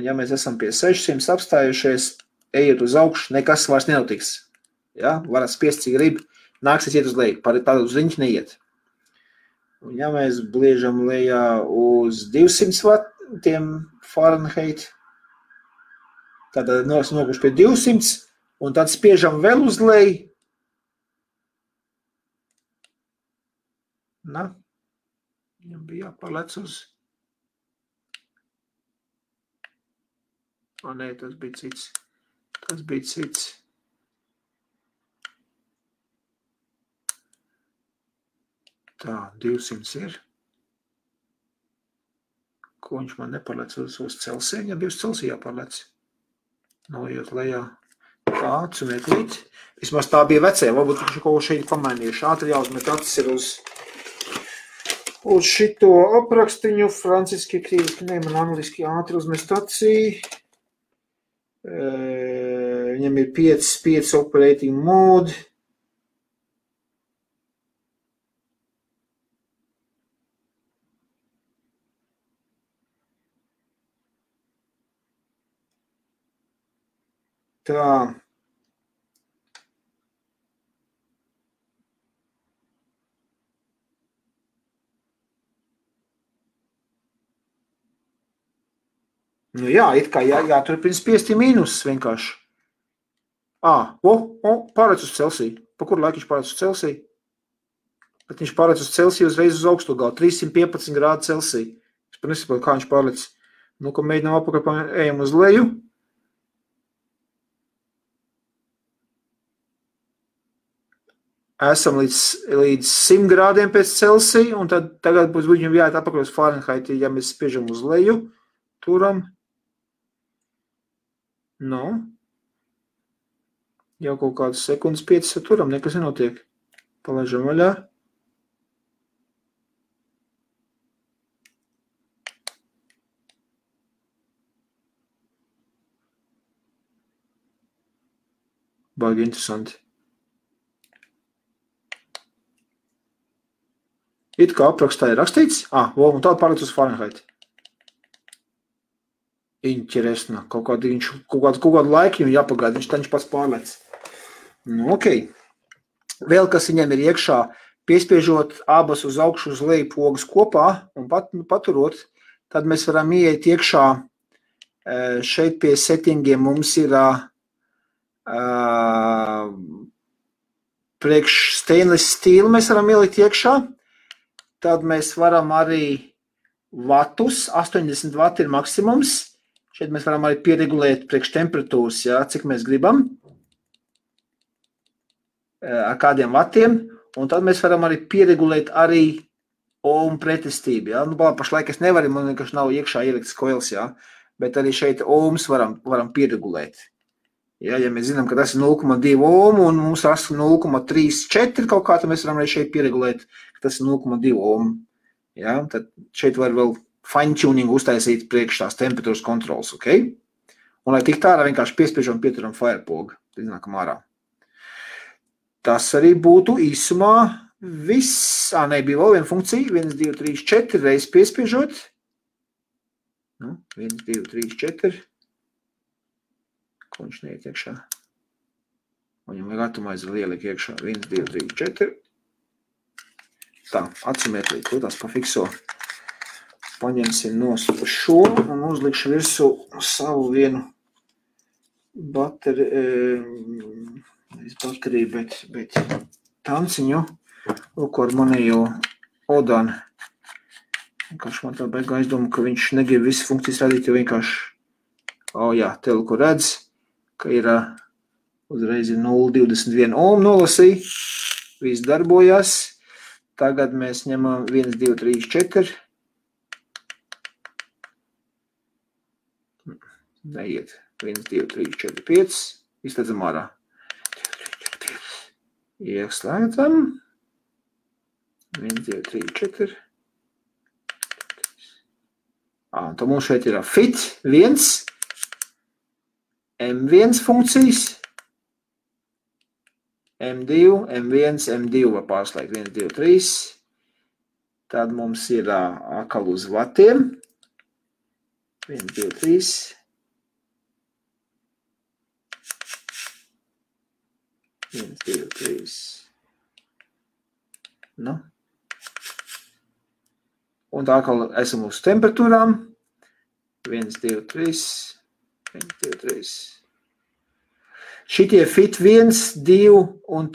Ja mēs esam pie 600 apstājušies, ejiet uz augšu, nekas vairs nenotiks. Ja? Varat spiest, cik grib, nāksies iet uz leju, tādu uz riņķi neiet. Un ja mēs bliežam lejā uz 200 tiem Fahrenheit. Tātad nokuši pie 200, un tad spiežam vēl uz leju. Viņam bija jāpārlec uz. Nē, tas bija cits. Tā, 200 ir. Ko viņš man nepārlec uz Celsiju? Viņam bija uz Celsiju jāpārlec. Noiet lejā. Tāds un eklīt. Vismaz tā bija vecajā. Varbūt viņš kaut ko šeit pamainījuši. Ātri jāuzmet acis ir uz šito aprakstiņu. Franciski, krīviski, man angliski ātri uzmest acī. Viņam ir 5 operating mode. Tā. Nu jā, it kā jāturpina spiest mīnus vienkārši. Pārēc uz Celsiju. Pa kuru laiku viņš pārēc uz Celsiju? Bet viņš pārēc uz Celsiju uzreiz uz augstu galu. 315 grādu Celsiju. Es pat nesaprotu, kā viņš pārēc. Nu, ko mēģinām apakaļ, ejam uz leju. Esam līdz 100 grādiem pēc Celsija, un tad tagad būs viņam jāiet apakaļ uz Fahrenheit, ja mēs spiežam uz leju, turam. Jau kaut kādas sekundes 5 turam, nekas nenotiek. Palaižam vaļā. Baigi interesanti. It kā aprakstā ir rakstīts, un tāda pārlec uz Fahrenheit. Interesna. Kaut kādu laiku viņam jāpagaida, viņš pats pārlec. Ok. Vēl, kas viņam ir iekšā, piespiežot abas uz augšu uz leju pogas kopā un paturot, tad mēs varam ieiet iekšā. Šeit pie settingiem mums ir priekš stainless steel mēs varam ielikt iekšā. Tad mēs varam arī vatus, 80 vati ir maksimums. Šeit mēs varam arī pieregulēt priekš temperatūras, cik mēs gribam, ar kādiem vatiem. Un tad mēs varam arī pieregulēt arī ohmu pretestību. Pašlaik es nevaru, man vienkārši nav iekšā ieliktas koils, bet arī šeit ohmus varam pieregulēt. Ja mēs zinām, ka tas ir 0,2 ohmu un mums ir 0,34 kaut kā, tad mēs varam arī šeit pieregulēt, ka tas ir 0,2 ohmu. Tad šeit var vēl fine-tuning uztaisīt priekš tās temperatūras kontrols, ok? Un lai tik tādā vienkārši piespiežam pieturam firepogu, tad iznākam ārā. Tas arī būtu īsumā viss. Bija vēl viena funkcija, 1, 2, 3, 4 reizes piespiežot. 1, 2, 3, 4. Ko viņš neiet iekšā? Viņam vajag atomaizi lieliek iekšā. 1, 2, 3, 4. Tā, atsumiet līdz, to tās pafikso. Paņemsim nost šo un uzlikšu virsū savu vienu bateriju, bet tanciņu, ko ar manējo Odanu. Vienkārši man tā beigā aizdomu, ka viņš negrib visas funkcijas radīt, jo vienkārši, teleku redz, ka ir uzreiz 0,21 ohmu nolasīja, viss darbojās. Tagad mēs ņemam 1, 2, 3, 4. Neiet. 1, 2, 3, 4, 5. Izslēdzam ārā. Ieslēdzam. 1, 2, 3, 4. Tad mums šeit ir fit 1, M1 funkcijas, M2, M1, M2 var pārslēgt 1, 2, 3. Tad mums ir atkal uz vatiem. 1, 2, 3. Viens, divi, trīs. Un tā atkal esam uz temperatūrām. 1, 2, 3. 1, 2, 3. Šitie fit 1, 2 un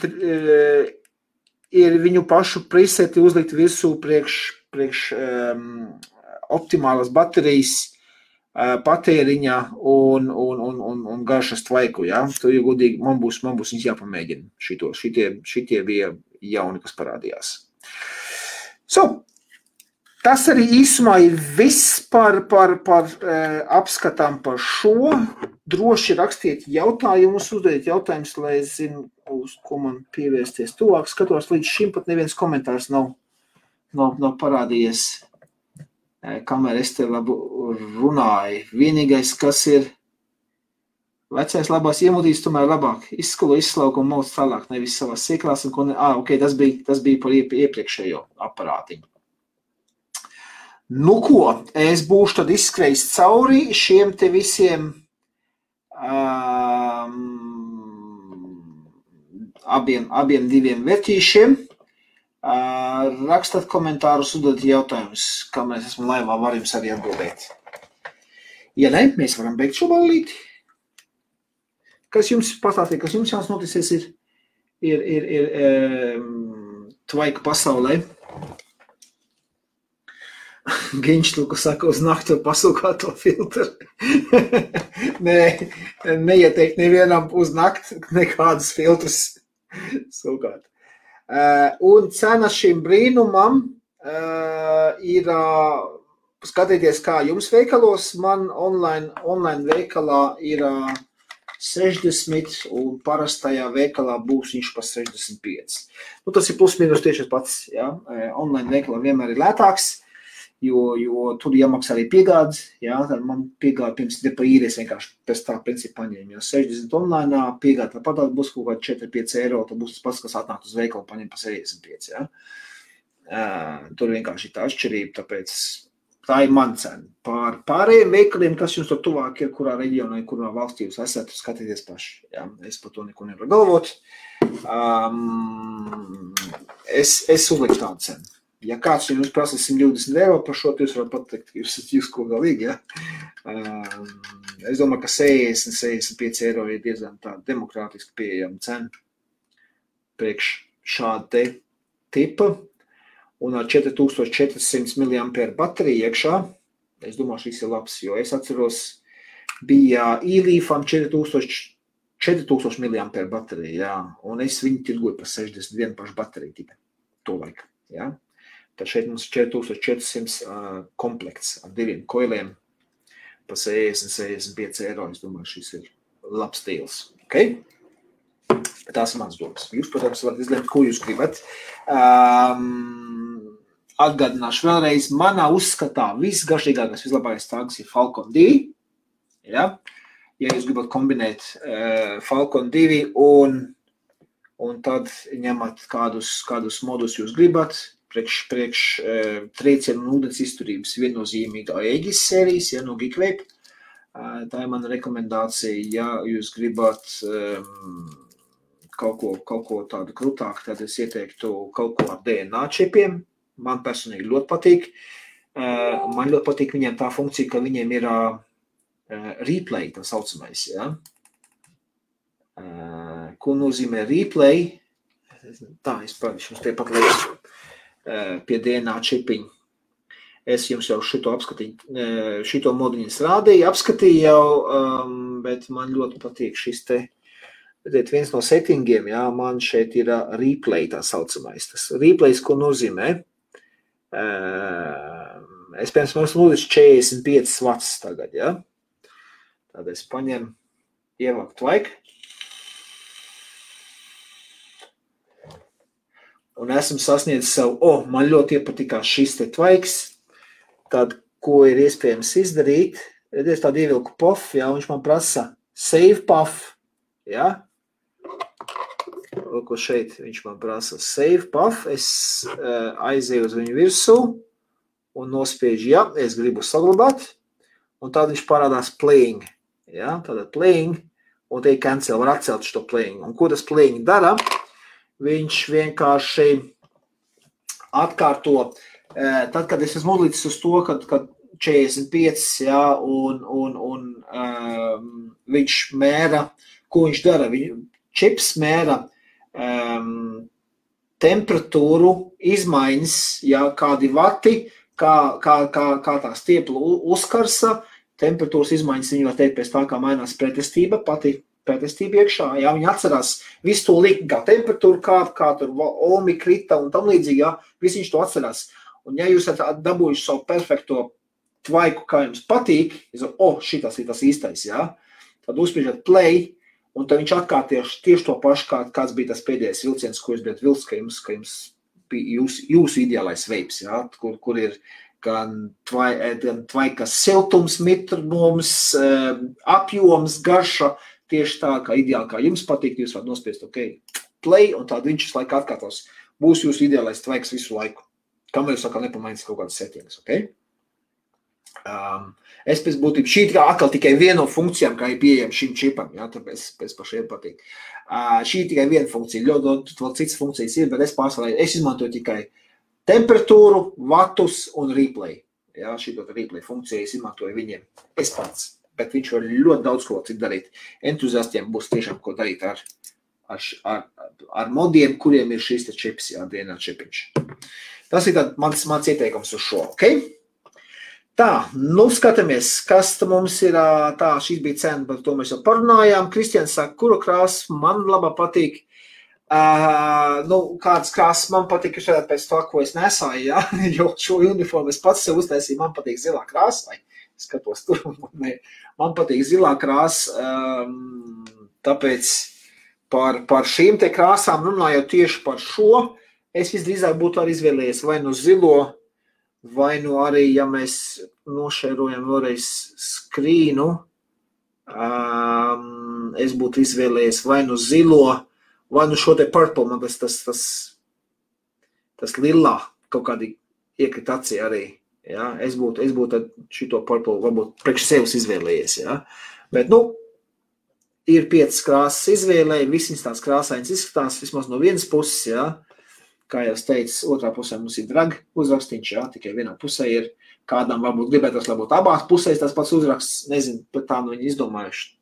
ir viņu pašu preseti uzlikt virsū priekš optimālas baterijas patēriņa un garšas tvaiku, ja? Tu, ja godīgi, man būs viņas jāpamēģina šitie bija jauni, kas parādījās. Tas arī īsumā ir viss par apskatām par šo. Droši rakstiet jautājumus, uzdodiet jautājumus, lai es zinu, uz ko man pievērsties tuvāk. Skatos, līdz šim pat neviens komentārs nav parādījies, kamēr es te labu runāju. Vienīgais, kas ir vecais labās iemūtīs, tomēr labāk izskalo, izslauka un mauc tālāk, nevis savās sieklās. Ok, tas bija par iepriekšējo aparātiņu. Nu ko, es būšu tad izskrējis cauri šiem te visiem abiem diviem vērtīšiem. Rakstat komentārus, uzdodiet jautājumus, kamēr es esmu laivā, var jums arī atbildēt. Ja ne, mēs varam beigt šo ballīti. Kas jums pastāstīja, kas jums jās noticies ir tvaika pasaulē? Giņš tu, kas saka, uz naktu pasūkāto filtru. Nē, neieteikt nevienam uz nakti nekādus filtrus sūkāt. Un cena šim brīnumam ir, skatieties, kā jums veikalos, man online veikalā ir 60 un parastajā veikalā būs viņš pa 65. Nu, tas ir plus mīnus tieši pats, ja? Online veikalā vienmēr ir lētāks. Jo tur jāmaksā arī piegādes, jā, tad man piegāda pirms depa īries vienkārši pēc tā principu paņēma, jo 60 online piegāda tāpat būs kaut kādi 4-5 eiro, tad būs tas pats, kas atnākt uz veikalu paņem pa 65, jā. Tur vienkārši ir tā atšķirība, tāpēc tā ir man cena. Par pārējiem veikaliem, kas jums tur tuvāk ir, kurā reģionā, kurā valstī jūs esat, skatieties paši, jā, es par to neko nevaru galvot. Es uzliku tādu cenu. Ja kāds jums prasa 120 eiro par šo, jūs varat pateikt, ka jūs ko galīgi, ja? Es domāju, ka 60-65 eiro ir diezgan tā demokrātiski pieejama cena priekš šāda te tipa un ar 4400 mAh bateriju iekšā. Es domāju, šis ir labs, jo es atceros, bija e-Leafam 4000 mAh baterija, jā, un es viņu tirgoju par 61 pašu bateriju tikai to laiku, jā. Tad šeit mums 4400 komplekts ar diviem koiliem pa 60-65 eiro. Es domāju, šis ir labs deals. Okay? Tās ir mans domas. Jūs, protams, varat izlemt, ko jūs gribat. Atgādināšu vēlreiz, manā uzskatā visgaršīgākais, vislabākais tāgs ir Falcon 2. Ja? Ja jūs gribat kombinēt Falcon 2 un tad ņemat kādus modus jūs gribat, priekš triecienu un ūdens izturības viennozīmīgā Aegis sērijas, ja, no Geekwave. Tā ir mana rekomendācija, ja jūs gribat kaut ko tādu krūtāku, tad es ieteiktu kaut ko ar DNA čipiem. Man personīgi ļoti patīk. Man ļoti patīk viņiem tā funkcija, ka viņiem ir replay, tā saucamais, ja. Ko nozīmē replay? Tā, es parādīšu jums tepat lietu. Pie DNA čipiņa. Es jums jau šito moduļus rādīju, apskatīju jau, bet man ļoti patīk šis te, viens no settingiem, jā, man šeit ir replay tā saucamais. Tas replays, ko nozīmē? Es, piemēram, mums 45 watts tagad, jā. Tad es paņemu, ievāku tvaiku. Un esmu sasniedzis savu, man ļoti iepatikās šis te tvaiks, tad, ko ir iespējams izdarīt, es tādu ievilku puff, jā, viņš man prasa save puff, jā, ko šeit viņš man prasa save puff, es aizēju uz viņu virsū un nospiežu, jā, es gribu saglabāt, un tad viņš parādās playing, jā, tātad playing, un te cancel, var atcelt šo playing, un ko tas playing dara? Viņš vienkārši atkārto, tad, kad es esmu uzlicis uz to, kad 45, jā, un viņš mēra, ko viņš dara? Čips mēra temperatūru izmaiņas, jā, kādi vati, kā tā stiepla uzkarsa, temperatūras izmaiņas viņi var teikt pēc tā, kā mainās pretestība, pati pretestība iekšā, jā, viņi atcerās visu to likt, kā temperatūru, kā tur ohmi krita un tam līdzīgi, jā, visu viņš to atcerās. Un ja jūs esat dabūjuši savu perfekto tvaiku, kā jums patīk, šitas ir tas īstais, jā, tad uzspiežat play, un tad viņš atkārt tieši to pašu, kāds bija tas pēdējais vilciens, ko jūs bijat vilks, ka jums bija jūsu ideālais veips, jā, kur ir gan tvaikas siltums, mitrums, apjoms, garša, tieši tā, kā ideāli, kā jums patīk, jūs varat nospiest, play, un tad viņš visu laiku atkārtos. Būs jūsu ideālais tvaiks visu laiku. Kamēr jūs sākā nepamainīs kaut kādas settings, Es pēc būtības, šī atkal tikai viena no funkcijām, kā ir pieejama šim čipam, jā, tāpēc pašiem patīk. Šī tikai viena funkcija, ļoti vēl citas funkcijas ir, bet es izmantoju tikai temperatūru, vatus un replay. Jā, šī replay funkcija es izmantoju viņiem, es pats, bet viņš var ļoti daudz ko citu darīt. Entuziastiem būs tiešām ko darīt ar modiem, kuriem ir šīs čips, jā, DNA čipiņš. Tas ir mans ieteikums uz šo, Tā, skatāmies, kas mums ir, šīs bija cena, par to mēs jau parunājām. Kristians saka, kuru krāsu man labā patīk. Kādas krāsas man patīk, pēc to, ko es nesāju, jā, jo šo uniformu es pats sev uztaisīju, man patīk zilā krāsa, vai skatos tur, man patīk zilā krāsa, tāpēc par šīm te krāsām runājot tieši par šo, es visdrīzāk būtu arī izvēlējies vai no zilo, vai nu arī, ja mēs nošērojam vēlreiz skrīnu, es būtu izvēlējies vai nu zilo, vai nu šo te purple, man tas lilā kaut kādi iekrit acī arī, jā, es būtu šito purple varbūt priekš sevis izvēlējies, jā, bet, ir 5 krāsas izvēlēji, visas tās krāsainas izskatās, vismaz no vienas puses, jā, kā jau es teicu, otrā pusē mums ir drag uzrakstīņš, jā, tikai vienā pusē ir, kādām varbūt gribētos, lai būtu abās pusēs tas pats uzraksts, nezinu, bet tā viņi izdomājuši.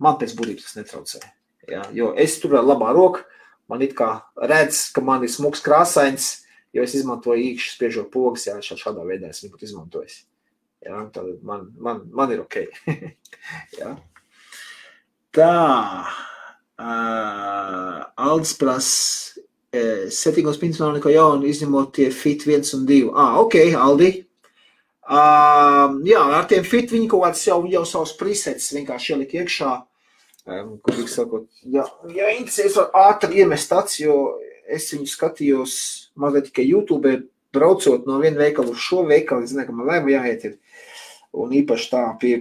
Man pēc būtības tas netraucē, jā, jo es tur labā roka, man it kā redz, ka man ir smuks krāsains, jo es izmantoju īkšķi spiežot pogas, jā, šādā veidā es viņu būtu izmantojis. Jā, tad man ir ok. Jā. Tā, Aldis prasa, settingos principā nav neko jaunu, izņemot tie fit 1 un 2. Ok, Aldi. Jā, ar tiem fit viņi kaut kāds jau savus presets vienkārši ielika iekšā, kur tik sakot, ja interesēs var ātri iemest tāds, jo es viņu skatījos mazliet tikai YouTube, braucot no viena veikala uz šo veikalu, es zinu, ka man lēma jāiet ir, un īpaši tā pie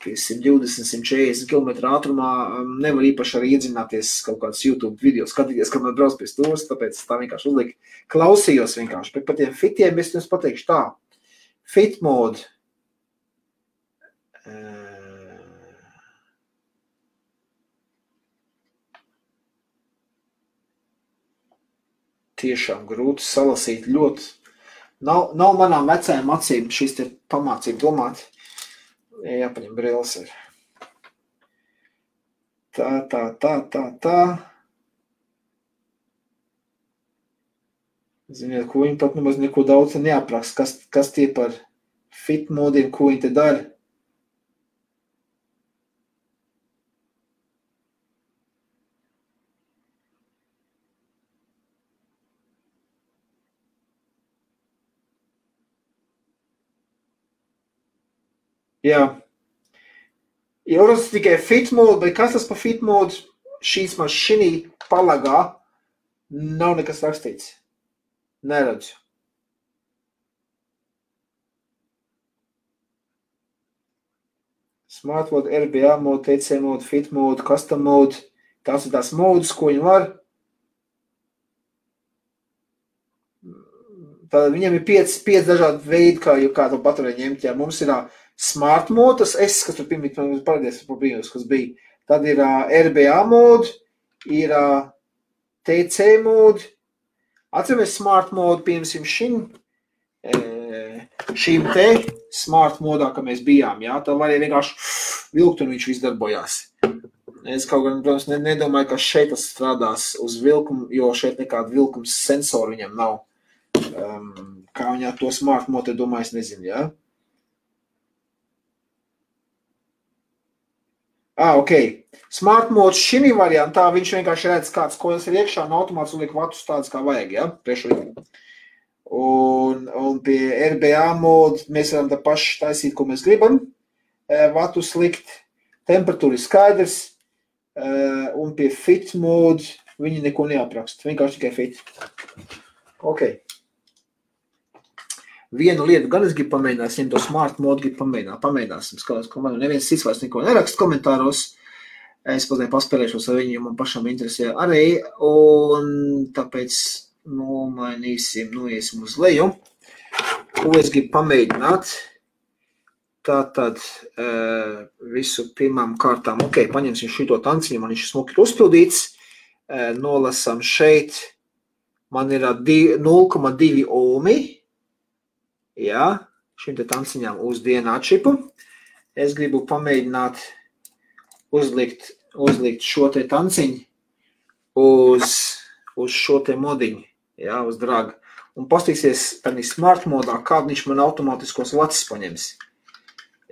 120-140 km ātrumā nevar īpaši arī iedzināties kaut kādas YouTube video, skatīties, kad man brauc pie stūras, tāpēc tā vienkārši uzlika. Klausījos vienkārši, bet par tiem fitiem es jums pateikšu tā. Fit mode. Tiešām grūti salasīt ļoti. Nav manām vecajām acīm šīs te pamācību domāt. Jāpaņem brilles ir. Tā. Ziniet, ko viņi pat nemaz neko daudz neapraksta, kas tie par fit modiem, ko viņi te dara. Jā. Jūras tikai fit mode, bet kas tas par fit mode? Šīs mašīnī palagā nav nekas rakstīts. Neredzu. Smart mode, RBA mode, TC mode, fit mode, custom mode. Tās ir tās modes, ko viņi var. Tad viņam ir 5 dažādi veidi, kā to paturēt ņemt. Jā, mums ir smart mode, tas kas tur pirmīt, man parādījās par brīnus, kas bija. Tad ir RBA mode, ir TC mode. Atceramies smart mode, piemēram, šim šīm te smart modā, ka mēs bijām, jā, tā var arī vienkārši vilkt un viņš viss darbojās. Es kaut gan, protams, nedomāju, ka šeit tas strādās uz vilkumu, jo šeit nekāda vilkums sensoru viņam nav. Kā viņā to smart modu, domāju, es nezinu, jā. Ok. Smart mods šim variantā, viņš vienkārši redz, kāds koils ir iekšā, un automāts liek vatus tādas, kā vajag, jā, priekšlikuma. Un pie RBA modu mēs varam tā paši taisīt, ko mēs gribam. Vatus likt, temperatūra ir skaidrs, un pie fit modu viņi neko neaprakst, vienkārši tikai fit. Ok. Vienu lietu gan es gribu pamēģināt, ja to smart modu gribu pamēģināsim. Skatās, ka man neviens cits vairs neko nerakst komentāros. Es pat paspēlēšos ar viņu, jo man pašam interesē arī. Un tāpēc noiesim uz leju. Ko es gribu pamēģināt? Tātad visu pirmām kārtām. Ok, paņemsim šito tanciņu, man viņš smuki ir uzpildīts. Nolasam šeit. Man ir 0,2 ohmi. Jā, šim te tanciņām uz DNA čipu. Es gribu pamēģināt uzlikt šo te tanciņu uz šo te modiņu, jā, uz draga. Un pastīsies tādā smart modā, kādu viņš man automātiskos vacis paņems.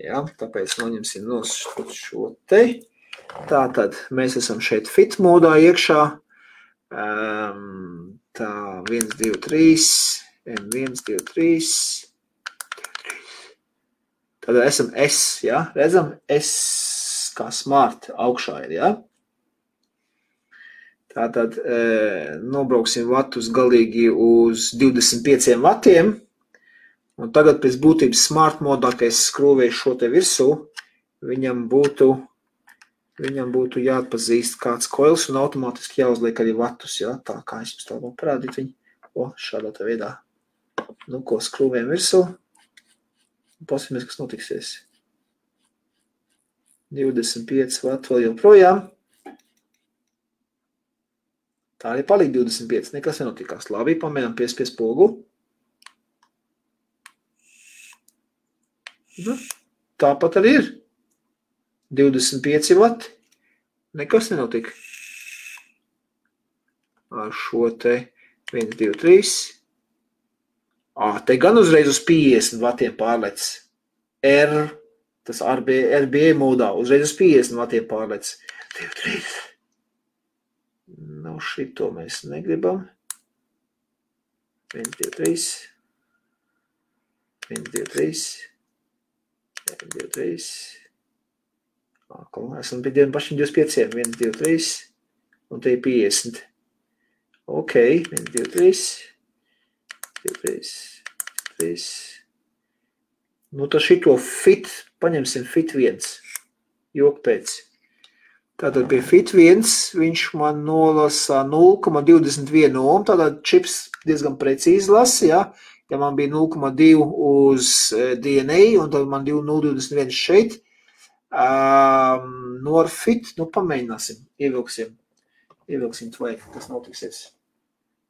Jā, tāpēc noņemsim no šo te. Tātad mēs esam šeit fit modā iekšā. Tā, 1, 2, 3, 1, 2, 3. Tad esam S, jā, redzam, S kā smart augšā ir, jā. Tātad nobrauksim vatus galīgi uz 25 vatiem. Un tagad pēc būtības smart modā, ka es skrūvēju šo te virsū, viņam būtu jāatpazīst kāds koils un automātiski jāuzliek arī vatus, jā. Tā kā es jums tā vēl parādīt viņu. Šādā tā veidā. Nu, ko skrūvējam virsū. Pasīmies, kas notiksies. 25 vati vēl joprojām. Tā arī palika 25, nekas nenotikās. Labi, pamēģinām pie spogu. Nu, tāpat arī ir. 25 vati. Nekas nenotika. Ar šo te 1, 2, 3. Te gan uzreiz uz 50 vatiem pārlec. Tas RBA modā uzreiz uz 50 vatiem pārlec. 2, 3. Nu, šito mēs negribam. 1, 2, 3. 1, 2, 3. 1, 2, 3. Esam pie pašiem 25. 1, 2, 3. Un te ir 50. Ok, 1, 2, 3. 3. Nu, tad šito fit, paņemsim fit 1. Jok pēc. Tātad pie fit 1 viņš man nolasa 0,21 ohm. Tātad čips diezgan precīzi lasa, jā. Ja man bija 0,2 uz DNA un tad man 0,21 šeit. No ar fit, nu pamēģināsim, ievilksim tvai, kas notiksies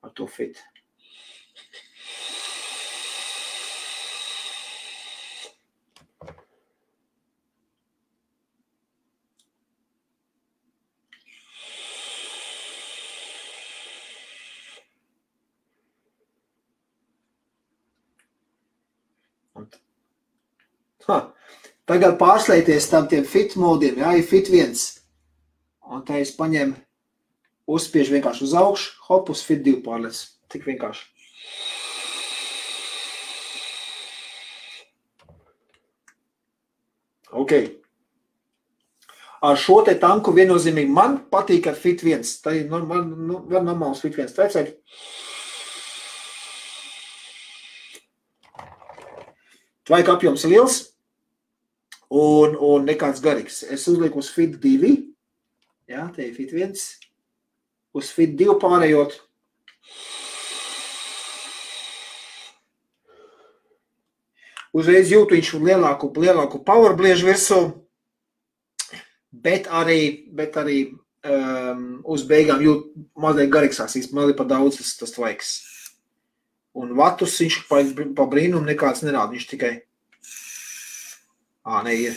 ar to fit. Tagad pārslēties tam tiem fit modiem, jā, ir fit 1. Un tā es paņemu, uzspiežu vienkārši uz augšu, hop, uz fit 2 pārlēc. Tik vienkārši. Ok. Ar šo te tanku viennozīmīgi man patīk ar fit 1. Tā ir var normāls fit 1 trecēt. Tvaika apjoms ir liels. Un nekāds garīgs. Es uzlieku uz fit 2. Jā, te ir fit 1. Uz fit 2 pārējot. Uzreiz jūtu viņš lielāku power bliežu virsū, bet arī uz beigām jūt mazliet garīgsās, man ir pa daudz tas tvaiks. Un vatus viņš pa brīnumu nekāds nerāda, viņš tikai, ir.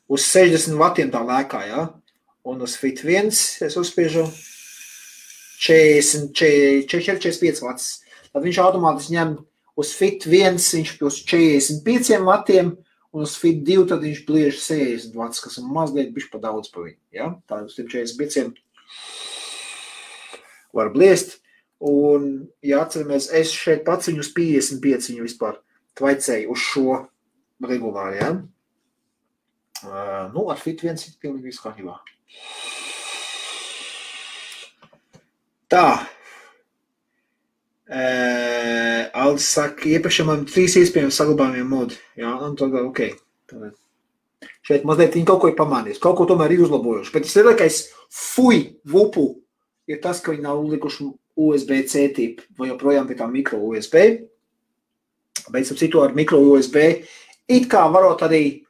Uz 60 vatiem tā lēkā, ja? Un uz Fit 1 es uzspiežu 45 vats. Tad viņš automātiski ņem uz Fit 1, viņš uz 45 vatiem, un uz Fit 2 tad viņš bliež 60 vats, kas ir mazliet bišķi pa daudz pa viņu. Ja? Tā uz 45 var bliest. Un, ja atceramies, es šeit pats viņu uz 55 viņu vispār tvaicēju uz šo regulāri, ja? Ar Fit 1 ir pilnīgi visu kārtībā. Tā. Aldis saka, iepriekšējā man 3 iespējami saglabājumiem modi. Jā, un tad, ok. Tad. Šeit mazliet viņi kaut ko ir pamanījis, kaut ko tomēr ir uzlabojuši. Bet tas lielākais vupu ir tas, ka viņi nav likuši USB-C tipu, vai joprojām pie tā mikro USB. Bet ap citu ar mikro USB it kā varot arī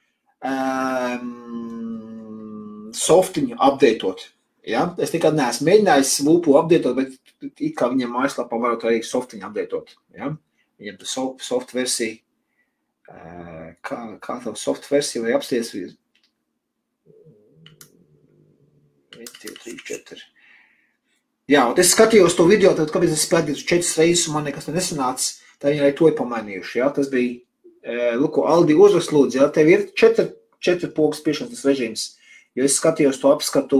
softiņu updateot. Ja? Es nekad neesmu mēģinājis vupu updateot, bet it kā viņiem mājaslapā varot arī softiņu updateot. Ja? Viņiem tā soft versija, kā tā soft versija vai apsties 1, 2, 3, 4. Jā, un es skatījos to video, tad kāpēc es spēlēju 4 reizes un man nekas nesanāca, tā viņi arī to ir pamainījuši. Ja? Tas bija, Aldi uzrakst lūdzu, ja? Tev ir 4 pogas spiešanas režīms, jo es skatījos to apskatu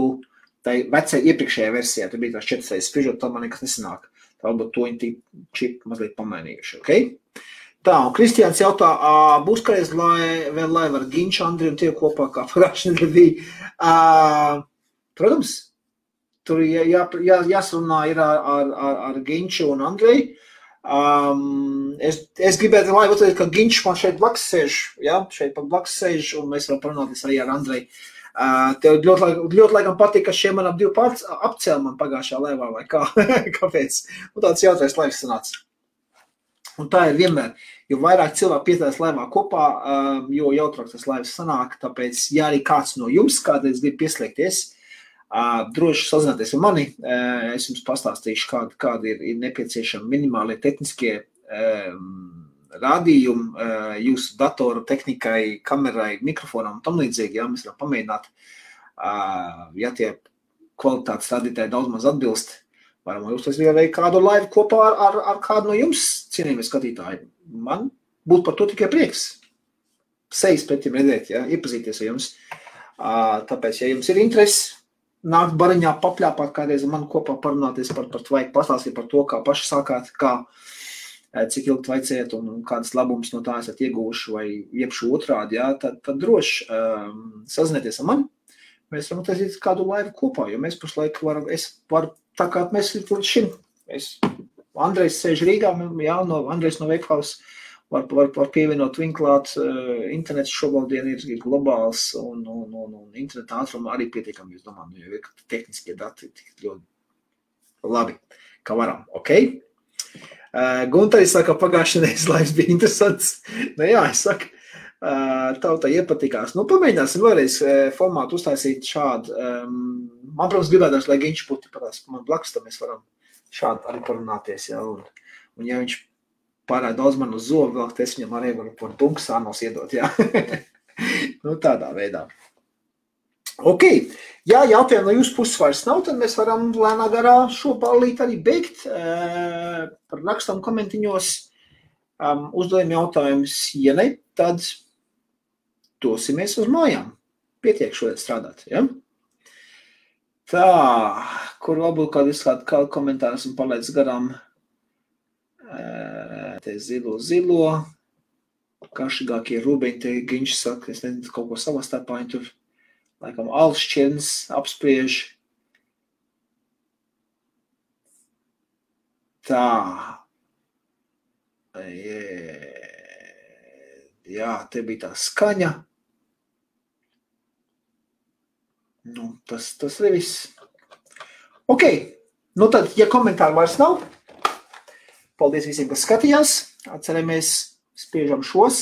tai vecai iepriekšējā versijā, tur bija tās 4 reizes spiežot, tad man nekas nesanāk. Tā varbūt to viņi čip mazliet pamainījuši, ok? Tā, un Kristiāns jautā, būs kādreiz vēl laiva ar Ginču, Andriju un tie kopā, kā pagājušajā nedēļā bija. Protams, tur jāsarunā ir ar Ginču un Andreju. Es gribētu laivu uzteikt, ka Ginčs man šeit blakus sēž, ja? Šeit pa blakus sēž, un mēs varam parunāties arī ar Andreju. Tev ļoti laikam patīk, ka šie man ap 2 pārts apcēl man pagājušā laivā, vai kā? Kāpēc? Un tāds jautrais laivs sanāca. Un tā ir vienmēr, jo vairāk cilvēku piedalās laivā kopā, jo jautrāk tas laivs sanāk, tāpēc, ja arī kāds no jums kādreiz grib pieslēgties, droši sazināties ar mani, es jums pastāstīšu, kādi ir nepieciešami minimālie tehniskie rādījumi jūsu datoru tehnikai, kamerai, mikrofonam un tam līdzīgi, ja mēs varam pamēģināt, ja tie kvalitātes rādītāji daudz maz atbilst, varam uztaisīt arī kādu laivu kopā ar kādu no jums, cienījamie skatītāji. Man būtu par to tikai prieks. Sejas pret jums redzēt, ja, iepazīties ar jums. Tāpēc, ja jums ir interesi, nākt bariņā papļāpāt kādreiz man kopā parunāties par tvaiku, pastāstīt par to, kā paši sākāt, cik ilgi tvaicējat un kādas labumus no tā esat ieguvuši vai iepšu otrādi, ja, tad droši sazinieties ar mani. Mēs varam taisīt kādu laivu kopā, jo mēs pašlaik varu tā kā mēs līdz šim. Andrejs sēž Rīgā, jā, Andrejs no Wakehouse var pievienot vinklāt. Internets šobrīd ir globāls un interneta ātruma arī pietiekami, es domāju, jo ir tehniskie dati ļoti labi, kā varam, ok? Guntaris saka, pagājušajā nedēļas laivs bija interesants. Jā, es saku, tautai iepatikās. Pamēģināsim vēlreiz formātu uztaisīt šādu. Man, protams, gribētās, lai Ginčs būtu patās man blakus, tad mēs varam šādi arī parunāties. Ja? Un ja viņš pārāk daudz man uz zobu vēl, es viņam arī varu par bunku sānos iedot. Ja? Tādā veidā. Ok, ja jautājumu no jūsu puses vairs nav, tad mēs varam lēnā garā šo ballīti arī beigt. Par rakstam komentiņos uzdodam jautājumus. Ja ne, tad dosimies uz mājām. Pietiek šodien strādāt, ja? Tā, kur varbūt kādu komentāru esmu palaidis garām. Te zilo. Kašīgākie rūbeņi, te Ginčs saka, es nezinu, kaut ko savā starpā, tur laikam Alšķirns apspriež. Tā. Jā, te bija tā skaņa. Tas arī viss. Ok, tad, ja komentāri vairs nav, paldies visiem, kas skatījās. Atceramies, spiežam šos.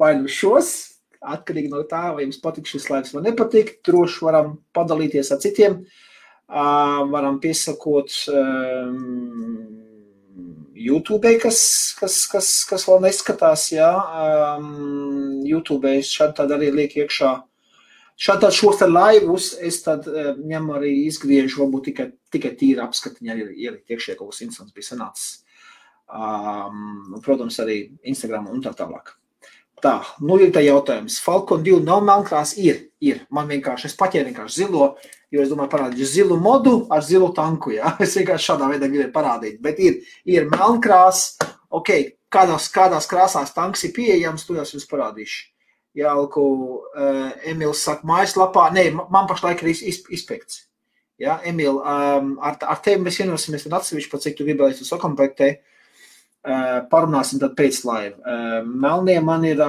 Vai šos. Atkarīgi no tā, vai jums patīk šis laivs vai nepatīk. Droši varam padalīties ar citiem. Varam piesakot YouTube, kas vēl neskatās, jā. YouTube šādi tad arī liek iekšā. Šādi šos te laivus es tad ņemu arī izgriežu, varbūt tikai tīri apskatiņi arī ielikt iekšē, kaut kas interesants bija sanācis. Protams, arī Instagram un tā tālāk. Tā, nu ir tā jautājums. Falcon 2 nav melnkrās? Ir. Man vienkārši, es paķēru vienkārši zilo, jo es domāju parādīšu zilu modu ar zilu tanku, jā. Es vienkārši šādā veidā gribēju parādīt, bet ir melnkrās, ok, kādās krāsās tanks ir pieejams, to jums parādīšu. Jālku, Emils saka mājaslapā, nē, man pašlaik ir izpekts. Jā, Emil, ar tevi mēs vienosimies tad atsevišķi, pat cik tu gribēji tu sakomplektē, parunāsim tad pēc laiva. Melnie man ir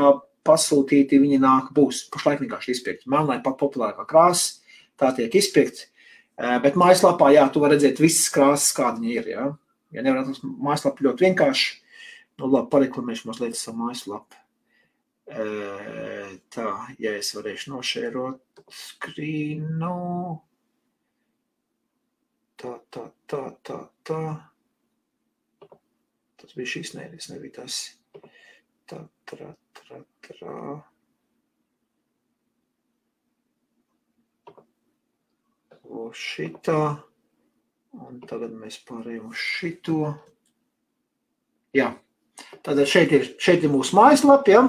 pasūtīti, viņi nāk būs, pašlaik vienkārši izpekti. Melnē pat populārākā krāsa, tā tiek izpekti, bet mājaslapā, jā, tu var redzēt visas krāsas, kāda viņi ir, jā. Ja nevar atrast mājaslapu ļoti vienkārši, nu labi, pareklamēšu mazliet savu mājaslapu. Tā, ja es varēšu nošērot skrīnu. Tā. Tas bija šīs nēļas, nebija tas. Tā. O šitā. Un tagad mēs pārējām uz šito. Jā. Tātad šeit ir mūsu mājaslapa, ja?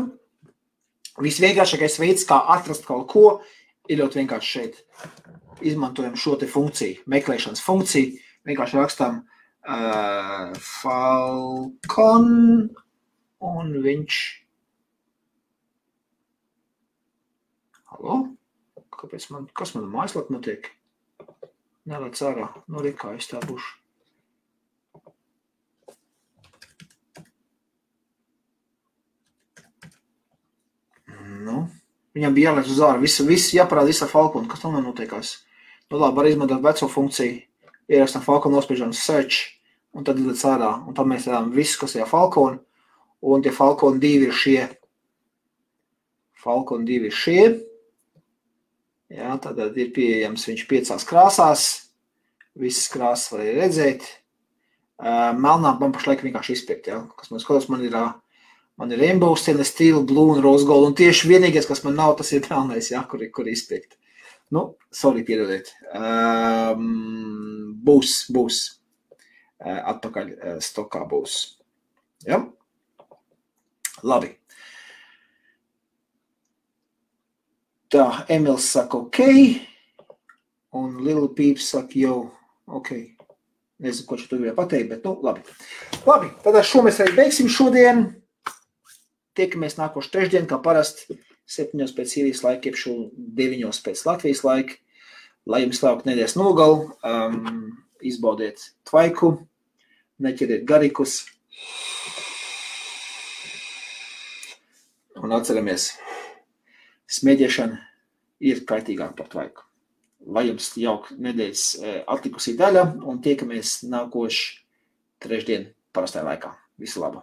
Visvienkāršākais veids, kā atrast kaut ko, ir ļoti vienkārši šeit. Izmantojam šo te funkciju, meklēšanas funkciju. Vienkārši rakstam Falcon un viņš... Halo? Kas man mājaslapa notiek? Nelēc ārā. Nu, kā es tā būšu. Nu, viņam bija jālēc uz ārā. Viss jāparāda visā Falcon. Kas tam notiekās? Nu, labi, var izmantot veco funkciju. Ierakstām Falcon, nospiežam search, un tad līdz ārā. Un tad mēs redzam visu, kas ir Falcon. Un tie Falcon 2 ir šie. Falcon 2 ir šie. Jā, tad ir pieejams viņš 5 krāsās. Visas krāsas var redzēt. Melnā man pašlaik vienkārši izpirkt, jā. Kas man skatās, man ir Rainbow, Stainless Steel, Blue un Rose Gold. Un tieši vienīgais, kas man nav, tas ir melnais, jā, kur izpirkt. Nu, sorry, piedodiet. Būs. Atpakaļ stokā būs. Ja? Labi. Tā, Emils saka ok. Un Little Peeps saka jau ok. Nezinu, ko tu gribēji pateikt, bet nu, labi. Labi, tad šo mēs arī beigsim šodien. Tiekamies nākošu trešdien, kā parasti. 7 pēc Sīrijas laika, iepšu 9 pēc Latvijas laika. Lai jums labāk nedēļas nogalu, izbaudiet tvaiku, neķeriet garikus. Un atceramies, smēķēšana ir kaitīgāk par tvaiku. Lai jums jauka nedēļas atlikusī daļa un tiekamies nākošu trešdien parastajā laikā. Visu labu!